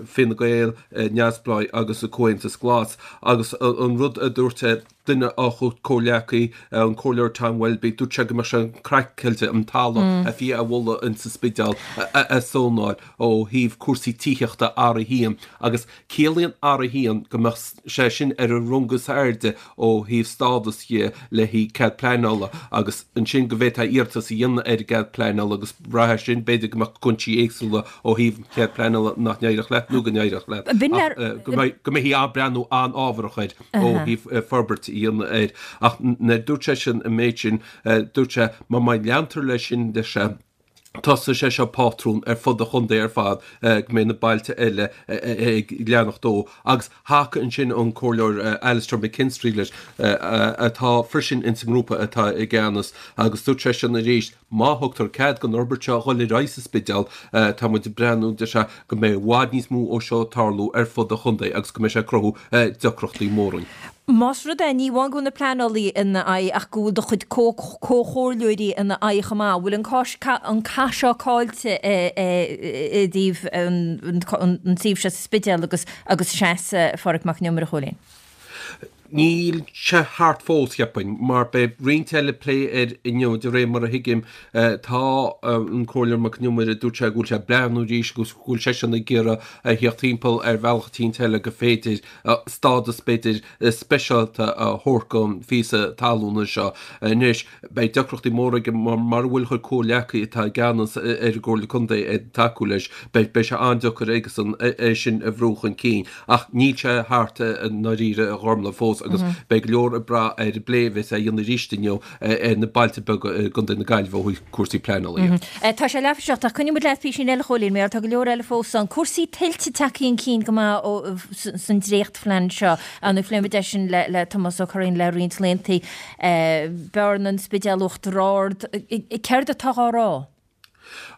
H: Fine Gael, Neamhspleáigh agus Comhaontas Glas. Agus an rud a dúirt duine dá chuid comhghleacaí, an Comhairleoir Tom Welby, dúirt sé go mbeadh sé craiceáilte an talamh a bhí á mholadh in sa Spidéal a zónáil. ó thaobh cúrsaí tithíochta a áirithiú. Agus ciallaíonn R1 go mbeadh sé sin ar an rung is airde ó thaobh stádas dhe le haghaidh cead pleanála agus ansin go bhféadfá iarratas a dhéanamh ar an gcead pleanála agus brath air sin b'fhéidir go mbeadh cúinsí éagsúla ó thaobh an chead pleanála nach n-éireodh leat nó go n-éireodh leat ach go mbeidh go mbeifí ag breathnú an-ábharach air ó thaobh forbairt a dhéanamh air. Ach nuair a dúirt seisean an méid sin dúirt sé má má leantar leis sin deir sé Tosóidh sé seo pátrún ar fud an chontae ar fad go mbeidh na bailte eile ag leanacht dó agus thacaigh ansin an Comhairleoir Alastair McKinstry leis atá freisin ins an ngrúpa atá i gceannas agus dúirt seisean arís má thugtar cead don fhorbairt seo a dhul ar aghaidh sa Spidéal tá muid ag breathnú deir sé go mbeidh i bhfad níos mó ó seo ag tarlú ar fud an chontae agus go mbeidh sé ag cruthú deacrachtaí móra.
A: Más rud é, ní amháin go bhfuil na pleanálaí ina aghaidh ach go bhfuil do chuid comhchomhairleoirí ina aghaidh chomh maith, bhfuil an cath seo caillte i dtaobh an tsuímh seo sa Spidéal agus agus seasamh Phádraig Mac Con Iomaire, a Chóilín?
H: Níl sé thart fós, cheapfainn, mar beidh roinnt eile plé air inniu, de réir mar a thuigim. Tá an Comhairleoir Mac Con Iomaire, dúirt sé go bhfuil sé ag breathnú arís agus go bhfuil seisean ag iarraidh a theacht timpeall ar bhealach eicínt eile go féidir stádas b'fhéidir speisialta a thabhairt don phíosa talúna seo. Anois, beidh deacrachtaí móra aige mar mura bhfuil a chuid comhghleacaithe atá i gceannas ar an gComhairle Contae ag tacú leis, beidh sé an-deacair aigesan é sin a bhrú chun cinn. Ach níl sé thart i ndáiríre, a Ghormlaith, fós agus beidh go leor ag brath ar an bplé a bheas á dhéanamh arís inniu ar na bailte beaga i gContae na Gaillimhe ó thaobh cúrsaí pleanála
A: dhe. Tá sé leathuair tar éis a 7 ach coinneoidh muid leat písín eile a Chóilín mar tá go leor eile fós ann. Cúrsaí tuilte tagtha chun cinn go maith san dréachtphlean seo. Nó phléigh muid é sin le Tomás Ó Curraoin le roinnt laethanta. Bearna, an Spidéal, Uachtar Ard. Céard atá á rá?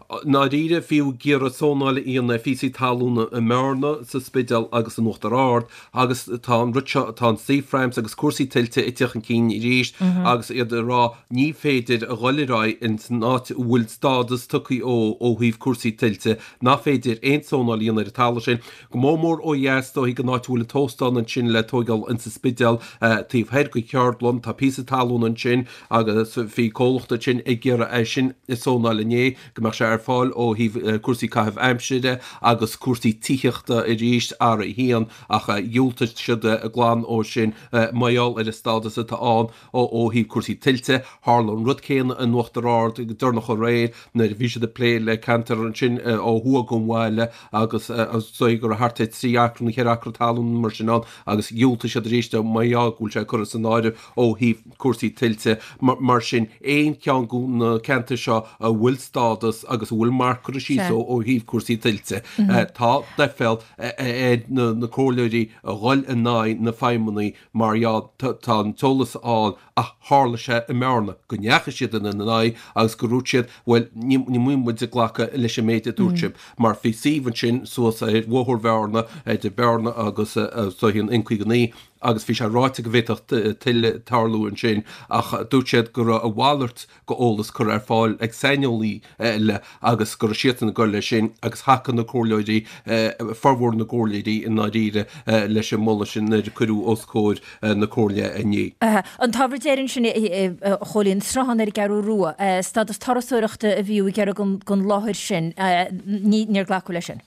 H: I ndáiríre, fiú ag iarraidh zónáil a dhéanamh ar phíosaí talúna i mBearna, sa Spidéal agus in Uachtar Ard agus tá an rud seo, tá an Sea Frames agus cúrsaí tuilte ag teacht chun cinn arís agus iad ag rá ní féidir a dhul ar aghaidh ins an áit a bhfuil stádas tugtha ó ó thaobh cúrsaí tuilte, nach féidir aon zónáil a dhéanamh ar an talamh sin. Go mór mór ó dheas, is dóichí, den áit a bhfuil an t-óstán ansin le tóigeáil ins an Spidéal, taobh thoir den cheardlann, tá píosa talún ansin agus bhí comhlacht ansin ag iarraidh é sin a zónáil inné, go mbeadh sé ar fáil ó thaobh cúrsaí caitheamh aimsire agus cúrsaí tithíochta arís, R1, ach dhiúltaigh siad glan ó sin mar gheall ar an stádas atá ann ó thaobh cúrsaí tuilte. Tharla an rud céanna in Uachtar Ard go deireanach aréir nuair a bhí siad ag plé le ceantar ansin ó thuaidh den bhaile agus is dóigh go raibh thart ar 3 acra nó 4 acra talún mar sin ann agus dhiúltaigh siad arís mar gheall go bhfuil sé curtha san áireamh ó thaobh cúrsaí tuilte. Mar sin, aon cheann de na ceantair seo a bhfuil stádas agus a bhfuil marc curtha síos ó thaobh cúrsaí tuilte, tá deiféal ar na comhairleoirí a dhul in aghaidh na feidhmeannaigh mar gheall tá an t-eolas ann ach tharla sé i mBearna go ndeachaigh siad ina n-aghaidh agus go ndúirt siad bhuel ní bhfuil muid ag glacadh leis an méid a dúirt sibh mar bhí suíomh ansin suas ar Bhóthar Bhearna idir Bearna agus is dóichí an N59 agus bhí sé ráite go bhféadfadh tuile tarlú ansin ach dúirt siad go raibh a mhalairt d'eolas curtha ar fáil ag saineolaí eile agus go raibh siadsan ag dul leis sin agus thacaigh na comhairleoirí, formhór na gcomhairleoirí i ndáiríre, leis an moladh sin nuair a cuireadh os comhair na comhairle inné.
A: An t-ábhar deiridh ansin, a Chóilín, sruthán ar an gCeathrú Rua, stádas turasóireachta a bhí ag iarraidh don láthair sin, níor glacadh leis sin.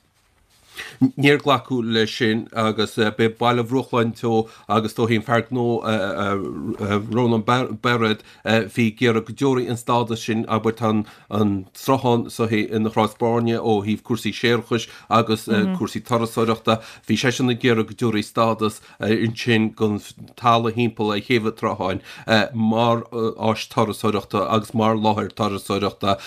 H: Níor glacadh leis sin agus b'é Baile Bhruachláin Teo agus is dóichí an fear gnó Rónán Bairéad a bhí ag iarraidh go dtabharfaí an stádas sin, abair tá an sruthán so ina chrá is bairne ó thaobh cúrsaí séarachais agus cúrsaí turasóireachta. Bhí seisean ag iarraidh go dtabharfaí stádas ansin don talamh thimpeall ar thaobh an tsrutháin mar áis turasóireachta agus mar láthair turasóireachta.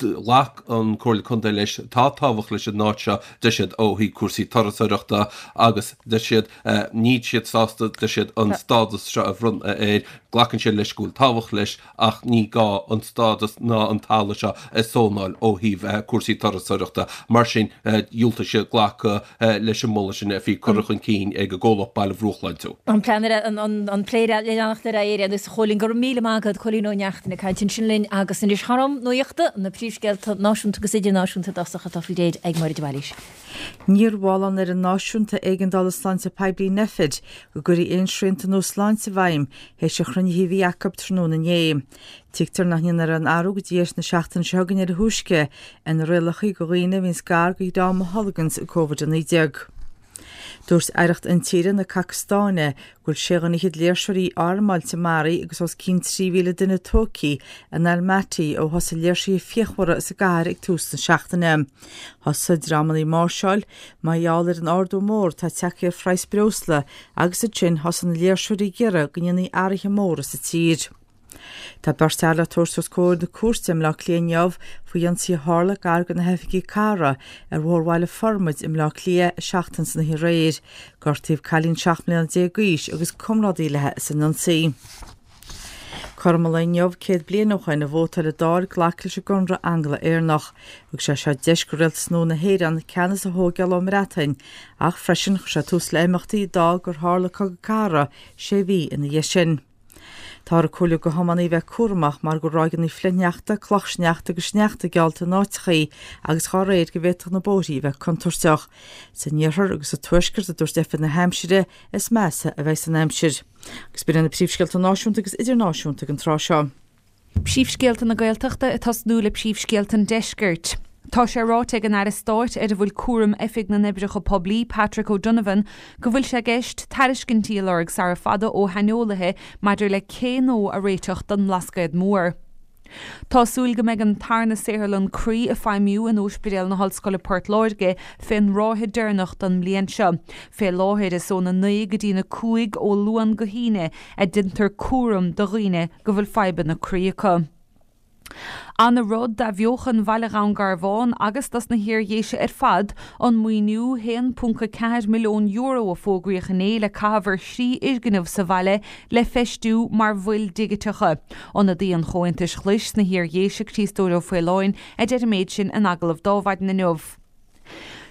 H: Ghlac an Comhairle Contae leis, tá tábhacht leis an áit seo, deir siad, ó thaobh cúrsaí turasóireachta agus deir siad, níl siad sásta, deir siad, an stádas seo a bhronnadh air, glacann siad leis go bhfuil tábhacht leis ach ní gá an stádas ná an talamh seo a zónáil ó thaobh cúrsaí turasóireachta. Mar sin, dhiúltaigh siad glacadh leis an moladh sin a bhí curtha chun cinn ag an gcomhlacht Baile Bhruachláin Teo.
A: An plean ar an plé le leanacht ar aghaidh ar aon nós, a Chóilín. Go raibh míle maith agat, Cóilín Ó Neachtain ag caint ansin linn agus anois thar am nuachta, na príomhscéalta náisiúnta agus idirnáisiúnta i dtosach atá faoi réir ag Máire de Bhailís.
B: Níor mhol an Fhoireann Náisiúnta Éigeandála Sláinte Poiblí, Nphet, go gcuirfí aon srianta nua sláinte i bhfeidhm théis an chruinnithe a bhí acu tráthnóna inné. Tuigtear nach ndéanfar aon athrú go dtí deireadh na seachtaine seo chugainn ar a thúisce ar na rialacha do dhaoine a bhíonns gar do dhream a tholganns Covid-19. Dúirt Aireacht Intíre na Cacastáine go bhfuil sé dhuine fhichead léirseoirí armáilte maraithe agus os cionn 3,000 duine tógtha in Almaty ó thosaigh léirsithe fíochmhara sa gcathair ag tús na seachtaine. Thosaigh dreamanna ag máirseáil mar gheall ar an ardú mór atá tagtha ar phraghas breosla agus ansin thosaigh na léirseoirí ag iarraidh go ndéanfaí athruithe móra sa tír. Tá beirt fhear le tabhairt os comhair na cúirte i mBleá Cliath inniu faoi ionsaí a tharla gar do na hoifigí cathrach ar Bhóthar Bhaile Formaid i mBleá Cliath seachtain san oíche aréir. Gortaíodh cailín 17 mbliana d'aois agus comrádaí léi san ionsaí. Cothrom an lae inniu 100 bliain ó shoin a vótáil an Dáil glacadh leis an gConradh Angla-Éireannach. Thug sé seo deis do rialtas nua na hÉireann ceannas a thóigeáil ón mBreatain ach freisin chuir sé tús le imeachtaí a d'fhág gur tharla Cogadh Cathartha sé mhí ina dhiaidh sin. Táthar ag comhairliú do thiománaithe bheith cúramach mar go bhfuil ráigeanna flichshneachta, clochshneachta agus sneachta geallta in áiteachaí agus dhá réir go bhféadfadh na bóithrí a bheith contúirteach. San iarthar agus sa tuaisceart, a dúirt Oifig na hAimsire, is measa a bheidh an aimsir. Agus b'in iad na príomhscéalta náisiúnta agus idirnáisiúnta ag an tráth seo.
C: Príomhscéalta na Gaeltachta ag tosnú le príomhscéalta an Deiscirt. Tá sé ráite ag an Aire Stáit ar a bhfuil cúram Oifig na nOibreacha Poiblí, Patrick O'Donovan, go bhfuil sé i gceist tairiscintí a lorg sara fada ó shaineolaithe maidir le cé nua a réiteach don mBlascaod Mór. Tá súil go mbeidh an tarna saotharlann croí ag feidhmiú in Óispidéal na hOllscoile Port Láirge fén ráithe deireanach don mbliain seo. Fé láthair is óna 9 go dtína 5 ó Luan go hAoine a deintear cúram do dhaoine go bhfuil fadhbanna croí acu. Ana rud d'athbheochan Bhaile Dhún Garbhán agus dos na hIar-Dhéise ar fad an maoiniú €1.4 milliún a fógraíodh inné le caitheamh ar thrí fhoirgneamh sa bhaile le feistiú mar mhoil dhigiteacha. Ionadaí an Chomhaontais Ghlais sna hIar-Dhéise, Críostóir Ó Faoláin, a deir an méid sin in agallamh d'Adhmhaidin inniu.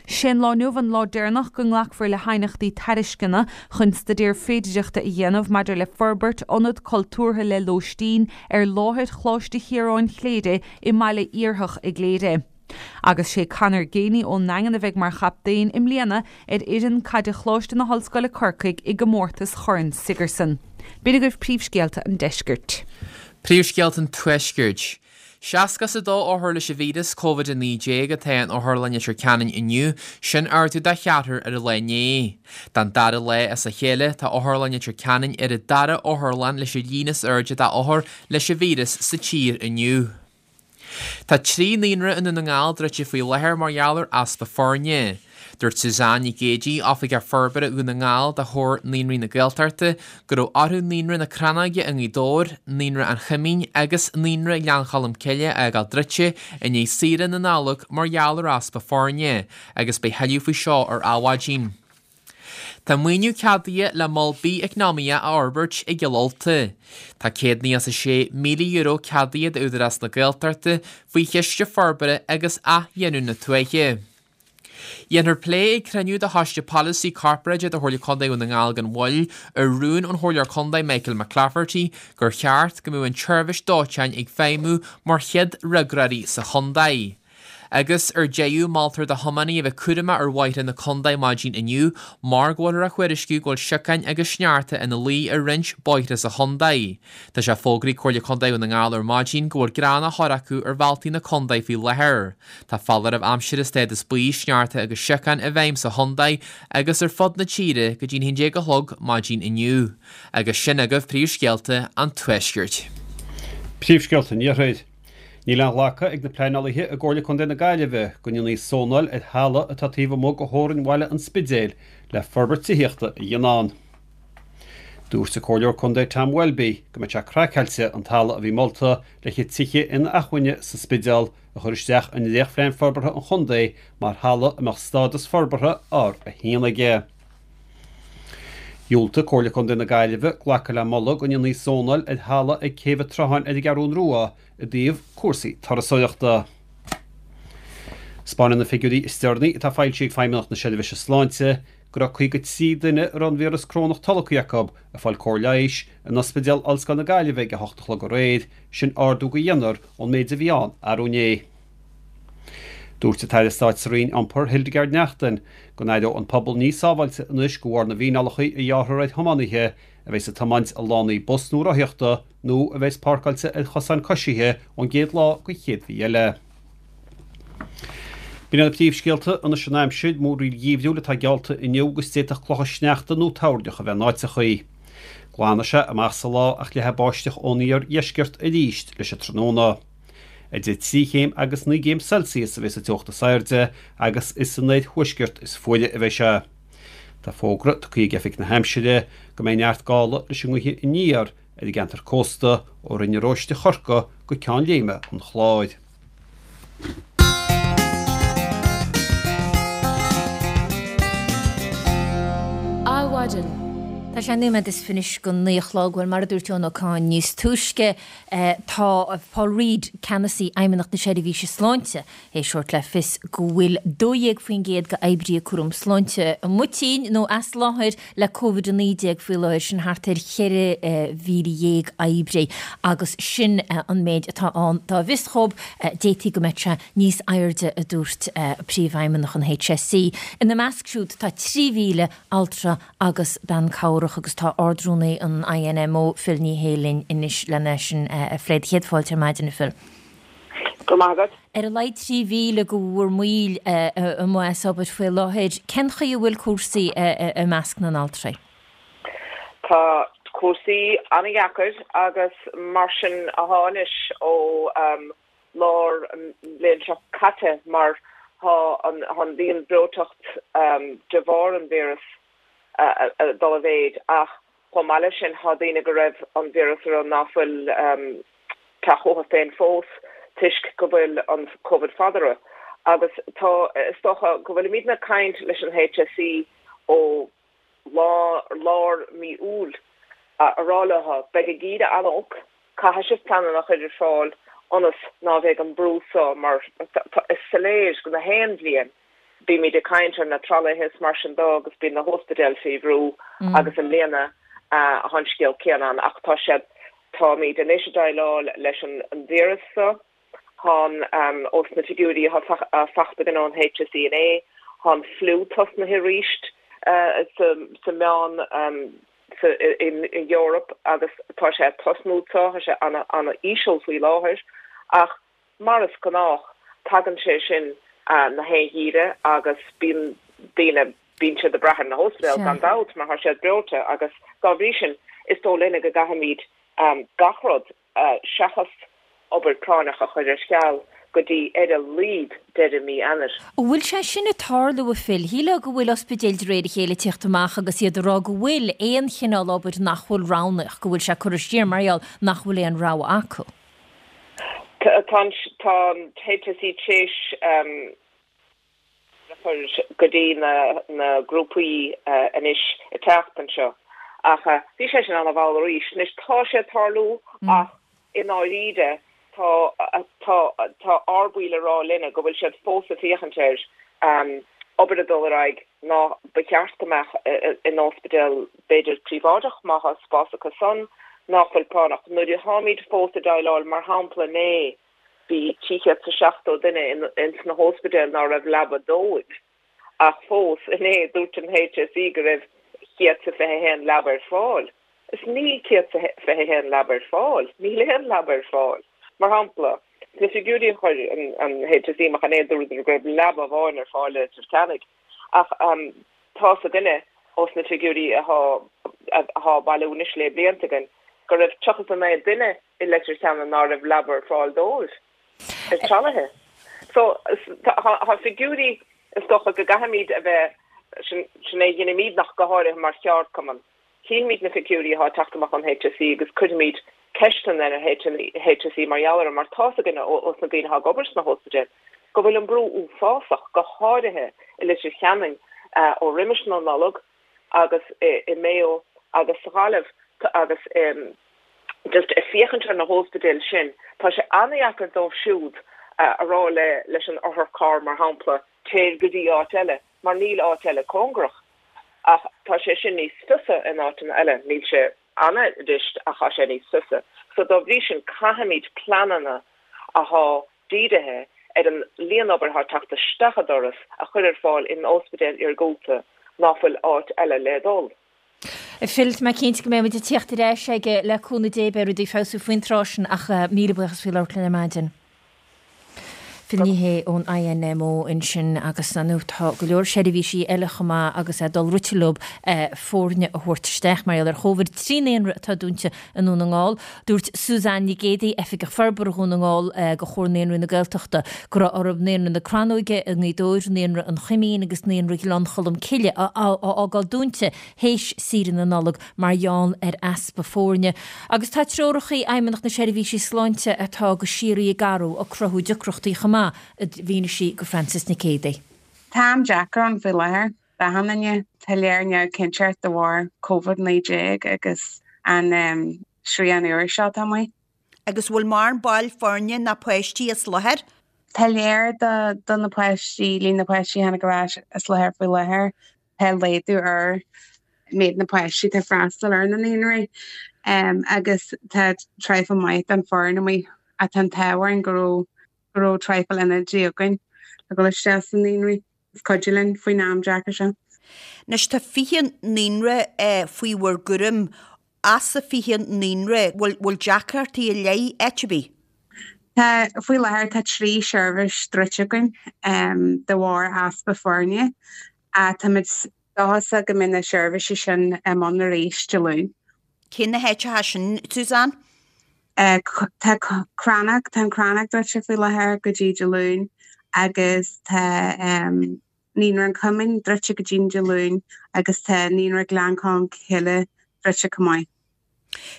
C: Sé'n lá inniu an lá deireanach go nglacfar le haighneachtaí tairisceana chun staidéar féidireachta a dhéanamh maidir le forbairt ionad cultúrtha le lóistín ar láthair Choláiste Chiaráin Chléire i mbaile Iarthach i gCléire. Agus sé Conor Geaney ón nDaingean a bheidh mar chaptaen i mbliana ar fhoireann caide Choláiste na hOllscoile Corcaigh i gcomórtas Chorn Sigerson. B'in agaibh príomhscéalta an deiscirt.
D: Príomhscéalta an tuaiscirt. 62 othar leis an víreas Covid-19 atá in Otharlann Leitir Ceanainn inniu, sin ardú de cheathrar ar an lá inné. Don dara lá as a chéile, tá Otharlann Leitir Ceanainn ar an dara otharlann leis an líon is airde d'othair leis an víreas sa tír inniu. Tá 3 naíonra i nDún na nGall druidte faoi láthair mar gheall ar easpa foirne. Dúirt Suzanne Nic Géidigh, Oifigeach Forbartha Dhún na nGall do Chomhar Naíonraí na Gaeltachta, go raibh orthu Naíonra na Crannóige i nGaoth Dobhair, Naíonra an Choimín agus Naíonra Ghleann Cholm Cille a fhágáil druidte i ndiaidh saoire na Nollag mar gheall ar easpa foirne, agus beidh thuilleadh faoi seo ar Adhmhaidin. Tá maoiniú ceadaithe le mol bith-eacnamaíoch a fhorbairt i gCill Ulta. Tá €196,000 ceadaithe d'Údarás na Gaeltachta faoi Chiste Forbartha agus Athghiniúna Tuaithe. Dhéanfar plé ag cruinniú de Choiste Polasaí Corparáide de Chomhairle Contae Dhún na nGall gan mhoill ar rún ón Chomhairleoir Contae Michael McClafferty gur cheart go mbeadh an tseirbhís dóiteáin ag feidhmiú mar chéad fhreagróirí sa chontae. Agus ar deireadh, moltar do thiománaithe a bheith cúramach ar bhóithre na contae maidin inniu mar go bhfuiltear á thuairisciú go bhfuil siocáin agus sneachta ina luí ar roinnt bóithre sa chontae. Tá sé fógraithe ag Comhairle Contae Dhún na nGall ar maidin go bhfuil grean á chur acu ar bhealtaí na contae faoi láthair. Tá foláireamh aimsire stádas buí, sneachta agus siocáin i bhfeidhm sa chontae agus ar fud na tíre go dtí'n 11 a chlog maidin inniu. Agus sin agaibh príomhscéalta an Tuaiscirt.
E: Príomhscéalta an Iarthair. Níl aon ghlacadh ag na pleanálaithe i gComhairle Contae na Gaillimhe go ndéanfaí zónáil ar thalamh atá taobh amuigh de theorainn bhaile an Spidéil le forbairt tithíochta a dhéanamh ann. Dúirt an Comhairleoir Contae Tom Welby go mbeadh sé craiceáilte an talamh a bhí molta le haghaidh tithe inacmhainne sa Spidéal a chur isteach i ndréachtphlean forbartha an chontae mar thalamh a mbeadh stádas forbartha R1 aige. Dhiúltaigh Comhairle Contae na Gaillimhe glacadh le moladh go ndéanfaí zónáil ar thalamh ag Céibh an tSrutháin ar an gCeathrún Rua i dtaobh cúrsaí turasóireachta. 'Spáineann na figiúirí is deireanaí atá foilsithe ag Feidhmeannacht na Seirbhíse Sláinte go raibh 53 duine a raibh an víreas corónach tolgtha acu ag fáil cóir leighis in Ospidéal Ollscoile na Gaillimhe ag a hocht a chlog aréir, sin ardú de dheichniúr ón méid a bhí ann arú inné. Dúirt an tAire Stáit sa Roinn Iompair Hildegarde Naughton go n-aireoidh an pobal níos sábháilte anois de bharr na bhfíneálacha a ghearrfar ar thiománaithe a bheas ag tiomáint i lánaí bus nó rothaíochta nó a bheas páirceáilte ar chosáin coisithe ón gcéad lá den chéad mhí eile. B'in iad na príomhscéalta, anois an aimsir, múraíl gheimhriúil atá geallta inniu agus d'fhéadfadh clocha sneachta nó toirneach a bheith in áiteachaí. Glanfaidh sé amach sa lá ach leathfaidh báisteach ón iardheisceart arís leis an tráthnóna. Idir 3 chéim agus 9 gcéim Celsius a bheidh sa teocht is airde agus is san oirthuaisceart is fuaire a bheidh sé. Tá fógra tugtha ag Oifig na hAimsire go mbeidh neart gála leis an ngaoth aniar ar an gceantar cósta ó Rinn an Róiste Chorcaí go Ceann Léime an Chláir.
A: Adhmhaidin. Tá sé nóiméad is fiche go 9 a chlog. Bhuel, mar a dúirt Eoin Ó Cadhain níos túisce, tá Paul Reid, Ceannasaí Fheidhmeannacht na Seirbhíse Sláinte, théis thabhairt le fios go bhfuil 12% d'oibrithe cúram sláinte amuigh tinn nó as láthair le Covid-19 faoi láthair, sin thart ar 14,000 oibrí agus sin an méid atá ann dá bhfios dhóibh. D'fhéadfaí go mbeadh sé níos airde, a dúirt Príomhfheidhmeannach an HSE. Ina measc siúd tá 3,000 altra agus bean cabhrach agus tá Ard-Rúnaí an INMO, Phil Ní Sheaghdha linn anois lena sin a phlé. Céad fáilte ar maidin, a Phil.
I: Go raibh maith agat.
A: Ar a laghad 3,000 de bhur mbaill amuigh as obair faoi láthair. Cén chaoi a bhfuil cúrsaí i measc na n-altraí?
I: Tá cúrsaí an-dheacair agus mar sin athá anois ó lár an bhliain seo caite mar thá an líon breoiteacht de bharr an víreas ag dul i mhéid ach Chomh maith leis sin, thá daoine go raibh an víreas orthu ná fuil teacht chucu féin fós toisc go bhfuil an Covid fada orthu. Agus tá, is dócha go bhfuilimidne ag caint leis an HSE ó lár mí Iúil a rá leo, beidh an geimhreadh an-olc, caithfidh sibh pleananna a chur ar fáil ionas ná bheidh an brú so mar is soiléir go na haon bhliain Bímid ag caint ar na tralaithe is mar sin dó agus bíonn na hóspidéil faoi bhrú agus i mbliana thá an scéal céanna ann ach tá siad, táimid anois ag déileáil leis an víreas so, thá an, ós na figiúirí athá fachta againn ón HSE inné, thá an fliú tosnaithe arís sa meán, sa, in Eoraip agus tá sé ag tosnú so, tá sé ana-íseal faoi láthair ach Mar is gnách, tagann sé sin na haon gheimhreadh agus bíonn daoine, bíonn siad ag brath ar na hóspidéil gan dabht mar tá siad breoite agus dá bhrí sin is dóigh linne go gcaithfimid gach rud seachas obair práinneach a chur ar ceal go dtí ar a laghad deireadh mí Eanáir.
A: An bhfuil sé sin ag tarlú, a Phil? Shílfeá go bhfuil ospidéil de réir a chéile ag tíocht amach agus iad ag rá go bhfuil aon chineál obair nach bhfuil roghnach, go bhfuil sé curtha siar mar gheall nach bhfuil aon rogha acu.
I: Tá an HSE tréis a chur go dtí na grúpaí anois an tseachtain seo ach bhí sé sin an-mhall arís. Anois tá sé ag tarlú ach i ndáiríre tá tá tá ár baill ag rá linne go bhfuil siad fós ag féachaint ar obair ag dul ar aghaidh ná ba cheart go mbeadh in ospidéal b'fhéidir príobháideach má thá spás acu san ná fuil práinneach. Nuair a tháimid fós ag déileáil, mar shampla inné bhí 370 duine ins na hóspidéil ná raibh leaba dóibh ach fós inné dúirt an HSE go raibh 121 leaba ar fáil. Is níl 121 leaba ar fáil. Níl aon leaba ar fáil. Mar shampla, sna figiúirí a chuir an HSE amach inné dúradar go raibh leaba amháin ar fáil i Leitir Ceanainn. Ach tá's againne ós na figiúirí athá á bailiú anois lé blianta againn go raibh 39 duine i Leitir Ceanainn ná raibh leaba ar fáil dóibh ar tralaithe. So tá figiúirí is dócha go gcaithfimid a bheith, sin é a dheinimídne ach go háirithe mar cheardchumann. Chífimid na figiúirí athá ag teacht amach ón HSE agus cuirfimid ceisteanna ar an HSE mar gheall orthu mar tá's againne ós na daoine athá ag obair sna hóspidéil go bhfuil an brú uafásach, go háirithe i Leitir Ceanainn ó roimis na Nollag agus i Maigh Eo agus sa Ghaillimh agus just ag féachaint ar na hóspidéil sin tá sé an-dheacair dóibh siúd a rá le leis an otharcharr mar shampla téir go dtí áit eile mar níl áit eile cóngarach. Ach tá sé sin níos fusa in áiteanna eile. Níl sé an-fhurasta ach tá sé níos fusa. So dá bhrí sin caithfimid pleananna athá dírithe ar an líon obair athá ag teacht isteach an doras a chur ar fáil in óspidéil iargúlta ná fuil áit eile le dul.
A: Phil, tá mé cinnte go mbeidh muid ag tíocht ar ais aige le cúnamh Dé, beidh rudaí ag feabhsú faoin tráth sin ach míle buíochas faoi labhairt linn ar maidin. Phil Ní Sheaghdha ón INMO ansin agus ar ndóigh tá go leor seirbhísí eile chomh maith agus é dul rite leo foirne a thabhairt isteach mar gheall ar Chóvid. 3 naíonra atá dúnta i nDún na nGall. Dúirt Suzanne Nic Géadaigh, Oifigeach Forbartha Dhún na nGall do Chomhar Naíonraí na Gaeltachta, go raibh orthu Naíonra na Crannóige i nGaoth Dobhair, Naíonra an Choimín agus Naíonra Ghleann Cholm Cille a fhágáil dúnta théis saoire na Nollag mar gheall ar easpa foirne. Agus tá treorachaí Fheidhmeannacht na Seirbhísí Sláinte atá go síoraí ag athrú ag cruthú deacrachtaí chomh maith, a mhínigh sí go Frances Nic Géadaigh.
J: Tá am deacair ann faoi láthair d'achan duine. Tá léir neamhchinnteacht de bharr Covid-19 agus an srian úr seo atá amuigh.
K: Agus bhfuil mórán baill foirne ná páistí as láthair?
J: Tá léir do na páistí, líon na páistí a tháinig ar ais as láthair faoi láthair. Tá laghdú ar méid na páistí atá ag freastal ar na naíonraí agus tá traidhfil maith den foireann amuigh ach tá an t-ádh orainn go raibh go raibh traidhfil ionadaí againn le dhul isteach sna naíonraí is cuidiú linn faoin am deacair seo.
K: Anois tá 20 naíonra faoi bhur gcúram As a 20 naíonra, bhfuil deacrachtaí ar leith áit ar bith?
J: Tá, faoi láthair tá 3 sheirbhís druidte againn de bharr easpa foirne. Táimid dóchasach go mbeidh na seirbhísí sin i mbun arís Dé Luain.
K: Cé na háiteacha sin, Suzanne?
J: Tá Crannóg, tá an Crannóg druidte faoi láthair go dtí Dé Luain agus tá Naíonra an Choimín druidte go dtí Dé Luain agus tá Naíonra Ghleann Cholm Cille druidte chomh maith.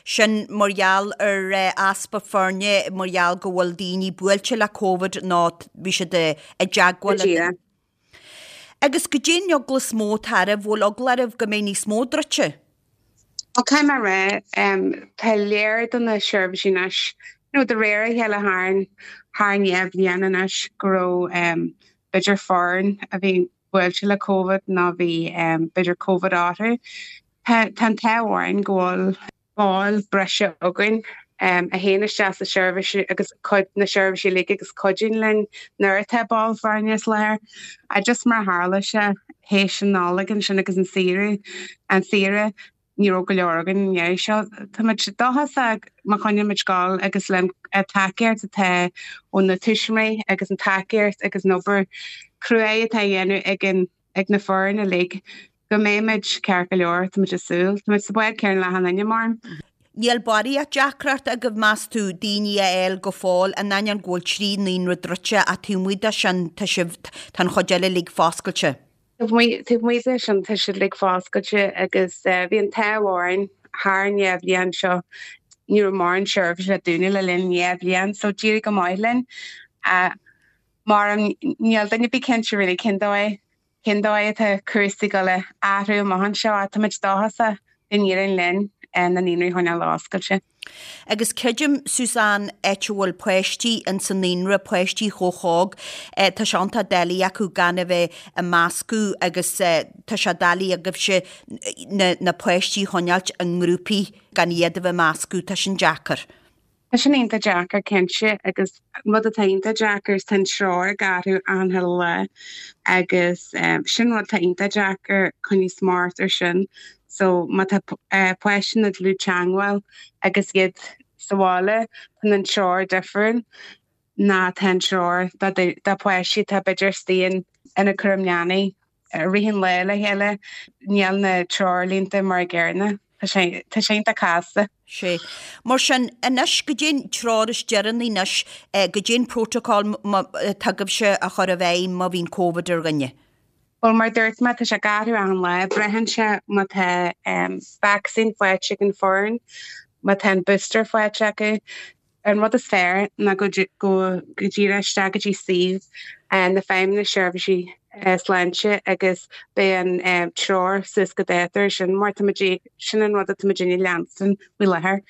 K: Sin mar gheall ar easpa foirne, mar gheall go bhfuil daoine buailte le Covid nó bhí siad i dteagmháil le daoine. Agus goidé an eagla is mó atá oraibh, bhfuil eagla oraibh go mbeidh níos mó druidte?
J: Bhuel, caithfidh mé a rá, tá léir do na seirbhísí anois, nó de réir a chéile thar thar an dhá bhliain anois, go raibh b'fhéidir foireann a bhí buailte le Covid nó bhí b'fhéidir Covid orthu. Tá an t-ádh orainn go bhfuil ball breise againn a théann isteach sa seirbhís agus cuid na seirbhísí uilig agus cuidíonn linn nuair atá ball foirne as láthair. Just mar a tharla sé théis an Nollaig ansin agus an saoire, an saoire, ní raibh go leor againn an iarraidh seo. Táimid dóchasach má choinnímid scoil agus le an tacaíocht atá ó na tuismitheoirí agus an tacaíocht agus an obair cruaidh atá á dhéanamh ag an ag na foireann uilig go mbeimid ceart go leor, táimid ag súil. Táimid sa bhád céanna le achan duine, mar.
K: Níl barraíocht deacracht agaibh meas tú, daoine a fháil go fóill, in ainneoin go bhfuil 3 naíonra druidte ach taobh amuigh de sin tá sibh, tá an chuid eile uilig foscailte.
J: Taobh amuigh de sin tá siad uilig foscailte agus bhí an t-ádh orainn thar an dhá bhliain seo ní raibh mórán seirbhísí le dúnadh le linn an dhá bhliain so d'éirigh go maith linn. Mar níl duine ar bith cinnte really cén dóigh, cén dóigh atá cúrsaí ag dul a athrú amach anseo ach táimid dóchasach go n-éireoidh linn na naíonraí a choinneáil oscailte.
K: Agus creidim, Suzanne, áit a bhfuil páistí ins an naíonra, páistí chomh hóg, tá sé iontach doiligh acu gan a bheith ag meascadh agus tá sé doiligh agaibhse na, na páistí a choinneáilt i ngrúpaí gan iad a bheith ag meascadh, tá sin deacair.
J: Tá sin iontach deacair cinnte agus rud atá iontach deacair is tá an treoir ag athrú achan chuile lá agus sin rud atá iontach deacair coinneáil smacht ar sin. So má tá páistí ina dlúth-teangmháil agus iad sa bhaile tá an treoir difriúil ná tá an treoir do pháistí atá b'fhéidir istigh ina cúram leanaí. I rith an lae le chéile, níl na treoirlínte mar a gcéanna. Tá sé, tá sé iontach casta.
K: Sea. Mar sin, anois, goidé an treoir is deireanaí anois, goidé an protocol atá agaibhse a chur i bhfeidhm má bhíonn Covid ar dhuine.
J: Bhuel, mar a dúirt mé, tá sé ag athrú achan lá. Braitheann sé má tá vacsaín faighte ag an foireann, má tá an booster faighte acu. An rud is fearr ná go díreach isteach go dtí suíomh na Feidhmeannas Seirbhísí Sláinte agus beidh an treoir suas go dáta ar sin mar táimid, sin an rud atá muidinne ag leanstan faoi láthair.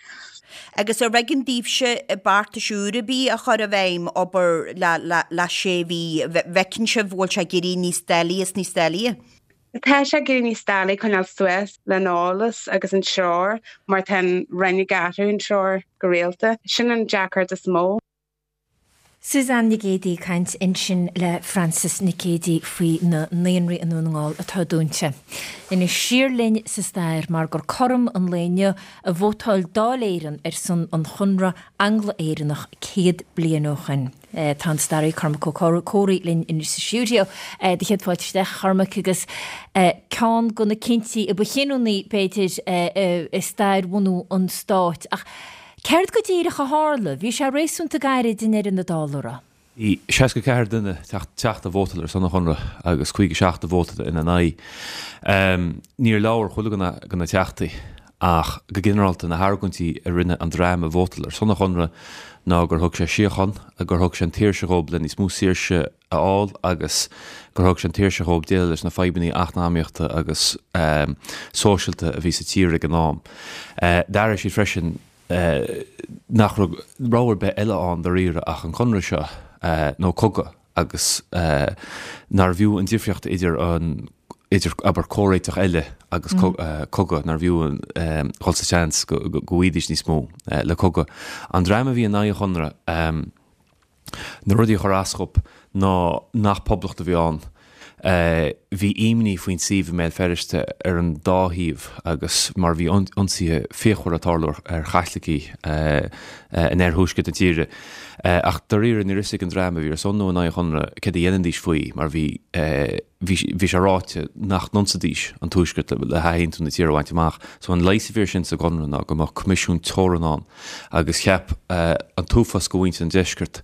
K: Agus ar éigean daoibhse beartais úr ar bith a chur i bhfeidhm, abair le sé mhí, bhfeiceann sibh bhfuil sé ag éirí níos doiligh is níos doiligh?
J: Tá sé ag éirí níos doiligh coinneáil suas leis an eolas agus an treoir mar tá an Roinn ag athrú an treoir go rialta. Sin an deacracht is mó.
A: Suzanne Nic Géadaigh ag caint ansin le Frances Nic Géadaigh faoi na naíonraí i nDún na nGall atá dúnta. Anois siar linn sa stair mar gur cothrom an lae inniu a vótáil Dáil Éireann ar son an Chonradh Angla-Éireannach 100 bliain ó shin. Tá an staraí Cormac Ó Comhraí linn anois sa stiúideo. Do chéad fáilte isteach, a Chormaic, agus ceann de na cinntí a ba chinniúnaí, b'fhéidir, i stair bhunú an stáit. Ach céard go díreach a tharla? Bhí sé réasúnta gairid i ndeireadh na dála, an raibh?
L: Bhí 64 duine, teachta, a vótáil ar son an Chonradh agus 57 a vótáil ina n-aghaidh. Níor labhair chuile dhuine de na teachtaí ach go ginearálta na hargóintí a rinne an dream a vótáil ar son an Chonradh ná gur thug sé síocháin, gur thug sé an tsaoirse dhóibh le níos mó saoirse a fháil agus gur thug sé an tsaoirse dhóibh déileáil leis na fadhbanna eacnamaíochta agus sóisialta a bhí sa tír ag an am. D'airigh siad freisin nach raibh rogha ar bith eile ann dáiríre ach an conradh seo nó cogadh agus nárbh fhiú an difríocht idir an idir abair comhréiteach eile agus cogadh, nárbh fhiú dhul sa tseans go bhfaighidís níos mó le cogadh. An dream a bhí in aghaidh an chonradh, Na rudaí a chuir as dhóibh ná nach poblacht a bhí ann. Bhí imní faoin suíomh i mBéal Feirste ar an dá thaobh agus mar bhí ionsaithe fíochmhara ag tarlú ar Chaitlicigh in oirthuaisceart na tíre. Ach dáiríre ní raibh fhios ag an dream a bhí ar son nó in aghaidh an Chonradh céard a dhéanfaidís faoi mar bhí bhí sé ráite nach n-ionsaídís an Tuaisceart le hathaontú na tíre a bhaint amach. So an leigheas a bhí air sin sa gConradh ná go mbeadh coimisiún teorann ann agus cheap an t-uafás de mhuintir an Deiscirt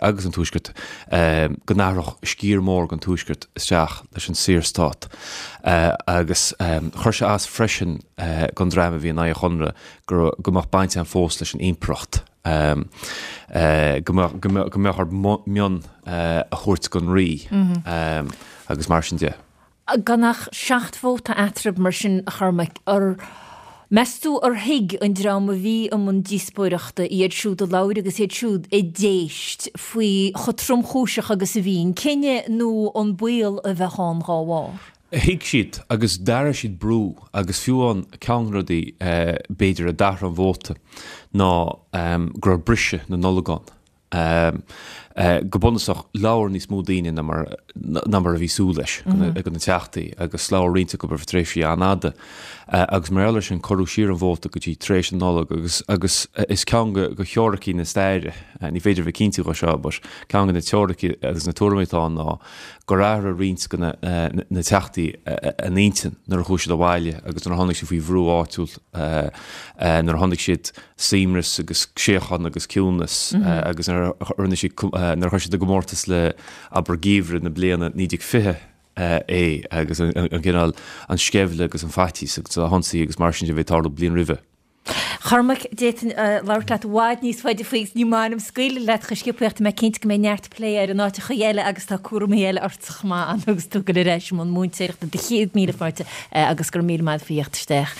L: agus an Tuaiscirt go n-athródh sciar mór den Tuaisceart isteach leis an Saorstát agus chuir sé as freisin don dream a bhí in aghaidh an Chonradh go mbeadh baint ann fós leis an Impireacht. Go mbeadh orthu mionn a thabhairt don Rí agus mar sin de.
A: Gan ach 7 vóta eatarthu mar sin, a Chormaic, ar meas tú ar thuig an dream a bhí i mbun díospóireachta, iad siúd a labhair agus iad siúd a d'éist, faoi chomh tromchúiseach agus a bhí an cinneadh nó an baol a bheadh ann dá bharr?
L: Thuig siad agus d'airigh siad brú agus fiú amháin ceann de na rudaí b'fhéidir a d'athraigh an vóta ná go raibh briseadh na Nollag ann. Go bunúsach labhair níos mó daoine ná mar ná mar a bhí súil leis de na teachtaí agus labhair roinnt acu ar feadh tréimhsí an-fhada agus mar gheall air sin cuireadh siar an vóta go dtí tar éis na Nollag agus agus is ceann de theoiricí na staire, ní féidir a bheith cinnte dhe seo but ceann de na teoiricí agus na tuairimí atá ann ná gur athraigh roinnt de na teachtaí a n-intinn nuair a chuaigh siad abhaile agus nuair a tháinig siad faoi bhrú áitiúil, nuair a chonaic siad suaimhneas agus síocháin agus ciúnas agus nuair a rinne siad, nuair a chuir siad i gcomórtas le, abair, geimhreadh na bliana 1920 é agus an cineál, an sceimhle agus an faitíos agus na hionsaithe agus mar sin de a bhí ag tarlú bliain roimhe.
A: Chormaic, d'fhéadfainn labhairt leat i bhfad níos faide faoi agus ní maith liom scaoileadh leat chomh sciobtha ach tá mé cinnte go mbeidh neart plé air in áiteacha eile agus tá cúramaí eile ortsa chomh maith agus tú ag dul ar ais i mbun múinteoireachta. Do chéad míle fáilte agus go raibh míle maith faoi theacht isteach,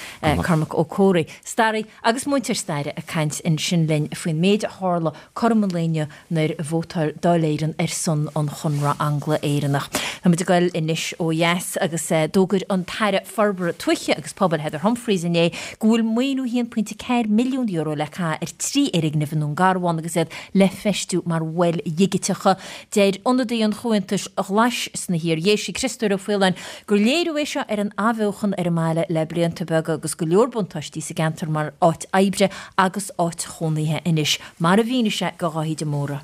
A: Cormac Ó Comhraí, staraí agus múinteoir staire ag caint ansin linn faoin méid a tharla cothrom an lae inniu nuair a vótáil Dáil Éireann ar son an Chonradh Angla-Éireannach. Táimid ag dul anois ó dheas agus d'fhógair an tAire Forbartha Tuaithe agus Pobail Heather Humphreys inné go bhfuil maoiniú €1.4 milliún le caitheamh ar 3 fhoirgneamh i nDún Garbhán agus iad le feistiú mar mhoil dhigiteacha. Deir ionadaí an Chomhaontais Ghlais sna hIar-Dhéisi, Criostóir Ó Faoláin, gur léiriú é seo ar an athbheochan ar an mbaile le blianta beaga agus go leor buntáistí sa gceantar mar áit oibre agus áit chónaithe anois. Mar a mhínigh sé do Dháithí de Mórdha.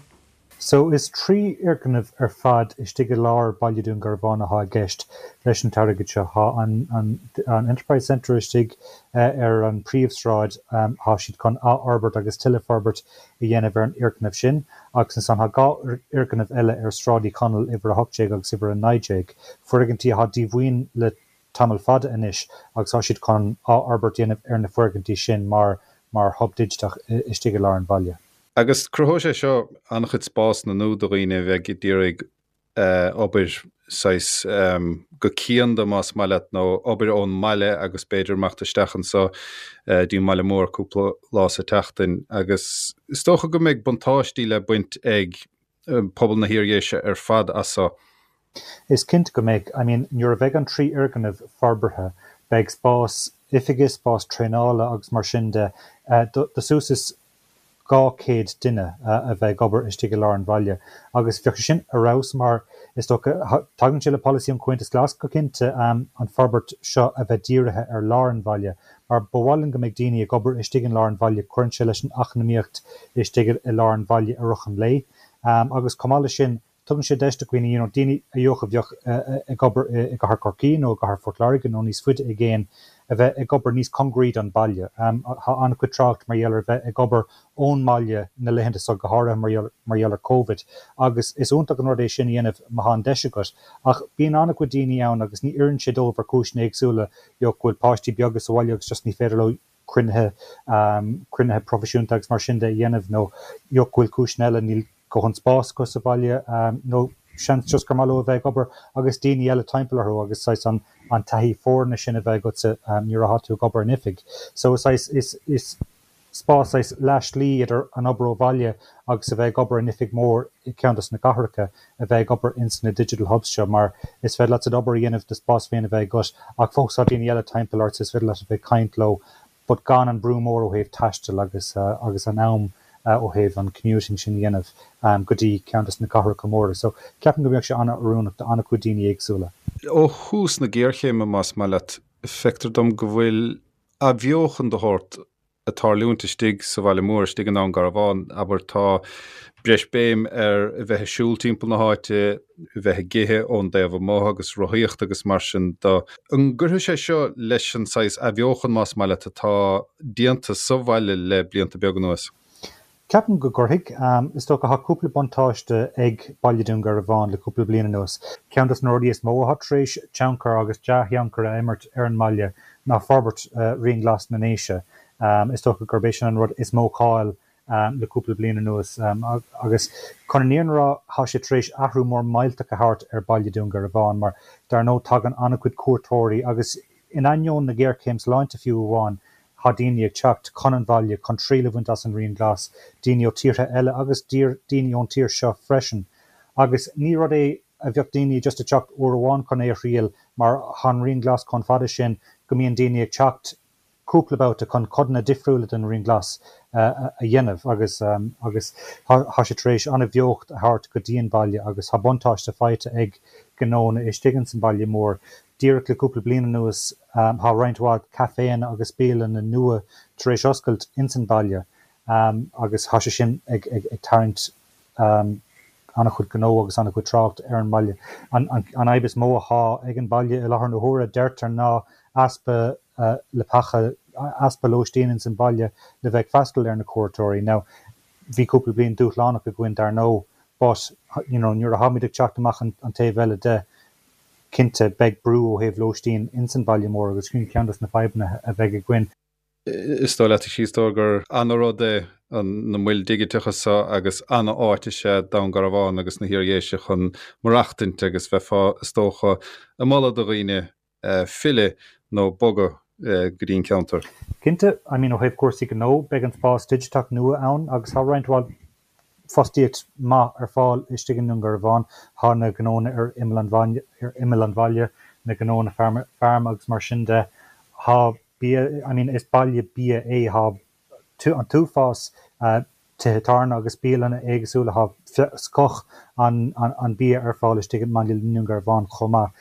M: So, is 3 fhoirgneamh ar fad istigh i lár Baile Dún Garbhán athá i gceist leis an t-airgead seo. Thá an an Enterprise Centre istigh ar an príomhsráid, thá siad chun athfhorbairt agus tuilleadh forbairt a dhéanamh ar an fhoirgneamh sin agus ansan thá 2 fhoirgneamh eile ar Sráid Uí Chonaill, uimhir 18 agus uimhir 19, foirgintí athá díomhaoin le tamall fada anois agus tá siad chun athfhorbairt a dhéanamh ar na foirgintí sin mar mar hub digiteach istigh i lár an bhaile.
N: Agus cruthóidh sé seo an-chuid spásanna nua do dhaoine a bheidh ag iarraidh obair saghas go cianda más maith leat nó obair ón mbaile agus b'fhéidir imeacht isteach anso dtí an mbaile mór cúpla lá sa tseachtain agus is dócha go mbeidh buntáistí le baint ag pobal na hIar-Dhéise ar fad as seo.
M: Is cinnte go mbeidh. I mean, nuair a bheidh an 3 fhoirgneamh forbartha, beidh spás oifige, spás traenála agus mar sin de do suas is 200 duine a bheith ag obair istigh i lár an bhaile. Agus bheadh sé sin ar fheabhas mar, is dócha, tagann sé le polasaí an Chomhaontais Ghlais go cinnte, an forbairt seo a bheith dírithe ar lár an bhaile. Mar ba mhaith linn go mbeidh daoine ag obair istigh in lár an bhaile, cuireann sé leis an eacnamaíocht istigh i lár an bhaile i rith an lae. Agus chomh maith leis sin, tugann sé deis do dhaoine, you know, daoine a dheoch a bheadh ag obair i gcathair Chorcaí nó i gcathair Phort Láirge nó níos faide i gcéin, a bheith ag obair níos congaraí don baile. Tá an-chuid trácht mar gheall ar bheith ag obair ón mbaile na laethanta seo, go háirithe mar gheall mar gheall ar Covid, agus is iontach an rud é sin a dhéanamh má tá an deis agat. Ach bíonn an-chuid daoine ann agus ní oireann sé dóibh ar chúiseanna éagsúla, you know, go bhfuil páistí beaga sa bhaile agus just ní féidir leo cruinnithe, cruinnithe proifisiúnta agus mar sin de a dhéanamh nó you know go bhfuil cúiseanna eile, níl dóthain spás acu sa bhaile nó seans just gur maith leo a bheith ag obair agus daoine eile timpeall orthu agus saghas an an taithí foirne sin a bheith agatsa nuair atá tú ag obair in oifig. So saghas is is spás saghas leath slí idir an obair ó bhaile agus a bheith ag obair in oifig mór i gceann dos na cathracha a bheith ag obair ins na digital hubs seo mar is féidir leat d'obair a dhéanamh, do spás féin a bheith agat ach fós tá daoine eile timpeall ort so is féidir leat a bheith ag caint leo but gan an brú mór ó thaobh taistil agus agus an am ó thaobh an commuting sin a dhéanamh go dtí ceann dos na cathracha móra. So ceapaim go mbeadh sé an-oiriúnach do an-chuid daoine éagsúla.
N: Ó thús na géarchéime, más maith leat, feictear dom go bhfuil athbheochan de shórt ag tarlúint istigh sa bhaile mór, istigh i nDún Garbhán, abair, tá breis béim ar a bheith ag siúl timpeall na háite, a bheith ag ithe ón dtaobh amuigh agus rothaíocht agus mar sin de. An gcuirfidh sé seo leis an saghas athbheochan, más maith leat, atá déanta sa bhaile le blianta beaga anuas?
M: Ceapaim go gcuirfidh. Is dócha, tá cúpla buntáiste ag Baile Dhún Garbhán le cúpla bliain anuas. Ceann dos na rudaí is mó atá tar éis tionchar agus dea-thionchar a imirt ar an mbaile ná forbairt Rian Glas na nDéise. Is dócha gurb é sin an rud is mó cáil le cúpla bliain anuas. Agus chun an fhírinne a rá, tá sé tar éis athrú mór millteach a thabhairt ar Baile Dhún Garbhán mar dar ndóigh tagann an-chuid cuairteoirí agus in ainneoin na géarchéim sláinte fiú amháin, Tá daoine ag teacht chun an bhaile chun triail a bhaint as an Rian Glas, daoine ó tíortha eile agus daoine ón tír seo freisin. Agus ní rud é a bheadh daoine just ag teacht uair amháin chun é a thriail mar tá an Rian Glas chomh fada sin go mbíonn daoine ag teacht cúpla babhta chun codanna difriúla den Rian Glas a dhéanamh agus agus tá sé tar éis an-bheocht a thabhairt go dtí an baile agus tá buntáiste faighte ag gnónna istigh ins an baile mór. Díreach le cúpla bliain anuas tá roinnt mhaith caiféanna agus bialanna nua tar éis oscailt ins an baile agus tá sé sin ag tarraingt an-chuid gnó agus an-chuid trácht ar an mbaile. An fhadhb is mó athá ag an baile i láthair na huaire, deirtear, ná easpa leapacha, easpa lóistín ins an baile le bheith ag freastal ar na cuairteoirí. Now, bhí cúpla bliain dúshlánach againn dar ndóigh but, you know, nuair atháimid ag teacht amach an taobh eile de, Cinnte, beidh brú ó thaobh lóistín ins an baile mór agus sin ceann dos na fadhbanna a bheidh againn.
N: Is dóigh leat, a Chríostóir, gur ana-rud é na moil dhigiteacha seo agus ana-áit is ea Dún Garbhán agus na hIar-Dhéise chun maireachtaint agus bheifeá, is dócha, ag moladh do dhaoine filleadh nó bogadh go dtí an ceantar.
M: Cinnte, I mean ó thaobh cúrsaí gnó, beidh an spás digiteach nua ann agus tá roinnt mhaith fostaíocht maith ar fáil istigh i nDún Garbhán. Tá na gnónna ar imeall an bhaile, ar imeall an bhaile, na gnónna feirme agus mar sin de. Tá bia, I mean is baile bia é, tá an t-uafás tithe tábhairne agus bialanna éagsúla, tá scoth an bia ar fáil istigh i mbaile Dhún Garbhán chomh maith.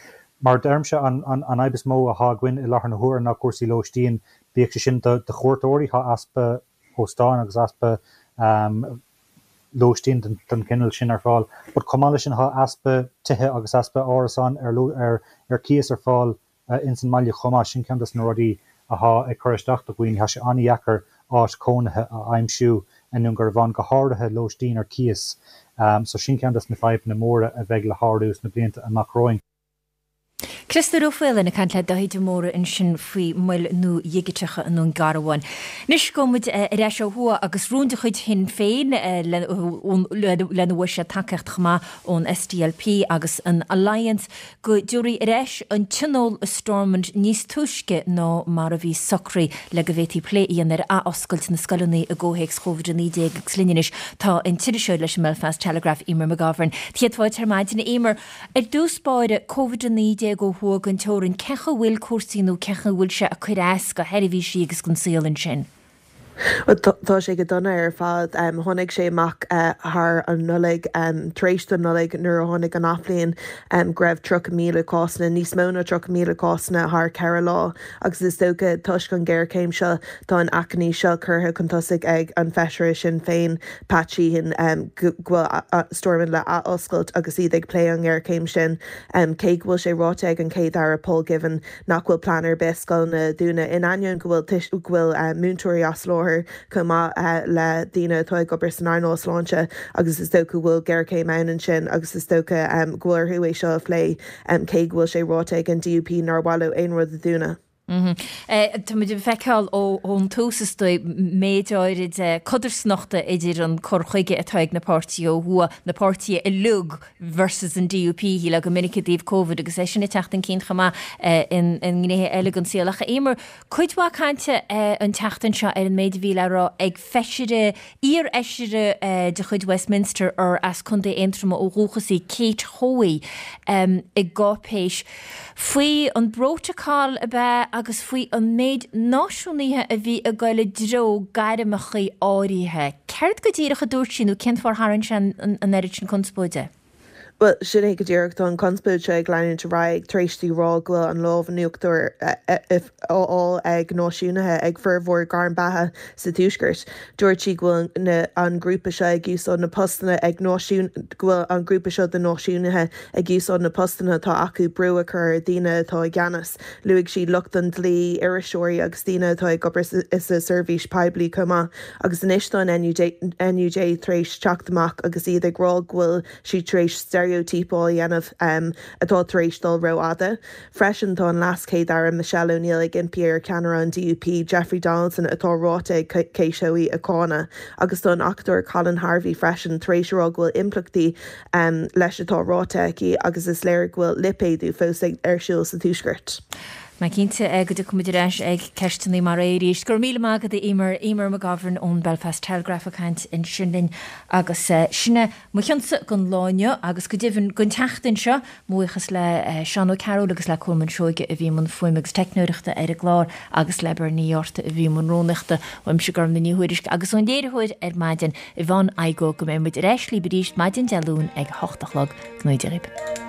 M: Mar a deirimse, an fhadhb is mó atá againn i láthair na huaire ná cúrsaí lóistín, bíodh sé sin do chuairteoirí, tá easpa óstáin agus easpa lóistín den chineál sin ar fáil. But chomh maith leis sin tá easpa tithe agus easpa árasáin ar ar cíos ar fáil ins an mbaile chomh maith. Sin ceann dos na rudaí athá ag cur isteach do dhaoine. Tá sé an-dheacair áit chónaithe a aimsiú i nDún Garbhán, go háirithe lóistín ar cíos. So sin ceann dos na fadhbanna móra a bheidh le shárú sna blianta amach romhainn.
A: Criostóir Ó Faoláin ag caint le Dáithí de Mórdha ansin faoi mhoil nua dhigiteacha i nDún Garbhán. Anois gabhfaidh muid ar ais ó thuaidh agus rún de chuid Shinn Féin lena bhfuair siad tacaíocht chomh maith ón SDLP agus an Alliance go dtabharfaí ar ais an Tionól i Stormont níos túisce ná mar a bhí socraithe le go bhféadfaí plé a dhéanamh ar athoscailt na scoileanna i gcomhthéacs Covid-19 agus linn anois tá an t-iriseoir leis an mBelfast Telegraph, Emer McGovern. Céad fáilte ar maidin, a Emer. Ar dtús báire, Covid-19 ó thuaidh den teorainn, cén chaoi a bhfuil cúrsaí nó cén chaoi a bhfuil sé ag cur as do sheirbhísí agus don saol ansin?
O: Tá sé go dona ar fad. Tháinig sé amach thar an Nollaig, tar éis don Nollaig nuair a tháinig an athbhliain, go raibh 30,000 cásanna, níos mó ná 30,000 cásanna thar cheithre lá agus is dócha toisc an ghéarchéim seo tá an achainí seo curtha chun tosaigh ag an bhfeisire Sinn Féin, Pat Sheehan, go bhfuil Stormont le athoscailt agus iad ag plé an ngéarchéim sin. Cé go bhfuil sé ráite ag an Chéad-Aire Paul Givan nach bhfuil plean ar bith scoileanna a dhúnadh, in ainneoin go bhfuil go bhfuil múinteoirí as láthair chomh maith le daoine atá ag obair san earnáil sláinte agus is dócha go bhfuil géarchéim ann ansin agus is dócha go bhfuil orthu é seo a phlé cé go bhfuil sé ráite ag an DUP nár mhaith leo aon rud a dhúnadh.
A: Tá muid ag feiceáil ón tús is dóigh méid áirid codarsnachta idir an cur chuige atá ag na páirtithe ó thuaidh, na páirtithe uilig versus an DUP, shílfeá go minic i dtaobh Covid agus é sin ag teacht chun cinn chomh maith i ngnéithe eile den saol. Ach a Eimear, cuid mhaith cainte an tseachtain seo ar an méid a bhí le rá ag feisire, iarfheisire de chuid Westminster ar as Contae Aontroma ó dhúchas í, Kate Hoey, i gcáipéis faoi an bprótacal ab ea agus faoi an méid náisiúnaithe a bhí ag goil i dtreo gairmeacha áirithe. Céard go díreach a dúirt sí nó cén fáth ar tharraing sé an oiread sin conspóide?
O: Bhuel, sin é go díreach. Tá an chonspóid seo ag leanúint ar aghaidh tar éis di rá go bhfuil an lámh in uachtar á fháil ag náisiúnaithe ag formhór gairm beatha sa Tuaisceart. Dúirt sí go bhfuil an grúpa seo ag úsáid na postanna ag náisiún, go bhfuil an grúpa seo de náisiúnaithe ag úsáid na postanna atá acu brú a chur ar dhaoine atá i gceannas. Luaigh sí lucht an dlí, iriseoirí agus daoine atá ag obair sa seirbhís poiblí chomh maith. Agus anois tá an NUJ tar éis teacht amach agus iad ag rá go bhfuil sí tar éis steiréitíopáil a dhéanamh atá tar éis dul rófhada. Freisin tá an LeasChéad-Aire Michelle O'Neill ag impí ar cheannaire an DUP, Jeffrey Donaldson, atá ráite ag Kate Hoey a cháineadh. Agus tá an acadóir Colin Harvey freisin tar éis a rá go bhfuil impleachtaí leis atá ráite aici agus is léir go bhfuil lipéadú fós ar siúl sa Tuaisceart.
A: Mé cinnte go dtiocfaidh muid ar ais ag ceisteanna mar é arís. Go raibh míle maith agat a Eimear. Eimear McGovern ón Belfast Telegraph ag caint ansin linn agus sin é mo chionsa don lá inniu agus go deimhin don tseachtain seo. Mo bhuíochas le Seán Ó Cearúil agus le Colmán Seoige a bhí i mbun fuaime agus teicneoireachta ar an gclár agus le Bernie Ní Fhátharta a bhí i mbun rúnaíochta. Uaimse Gormfhlaith Ní Thuairisg agus ón léiritheoir ar maidin, Yvonne Igoe go mbeidh muid ar ais libh arís maidin Dé Luain ag a hocht a chlog. Go ngnóthaí Dia dhaoibh.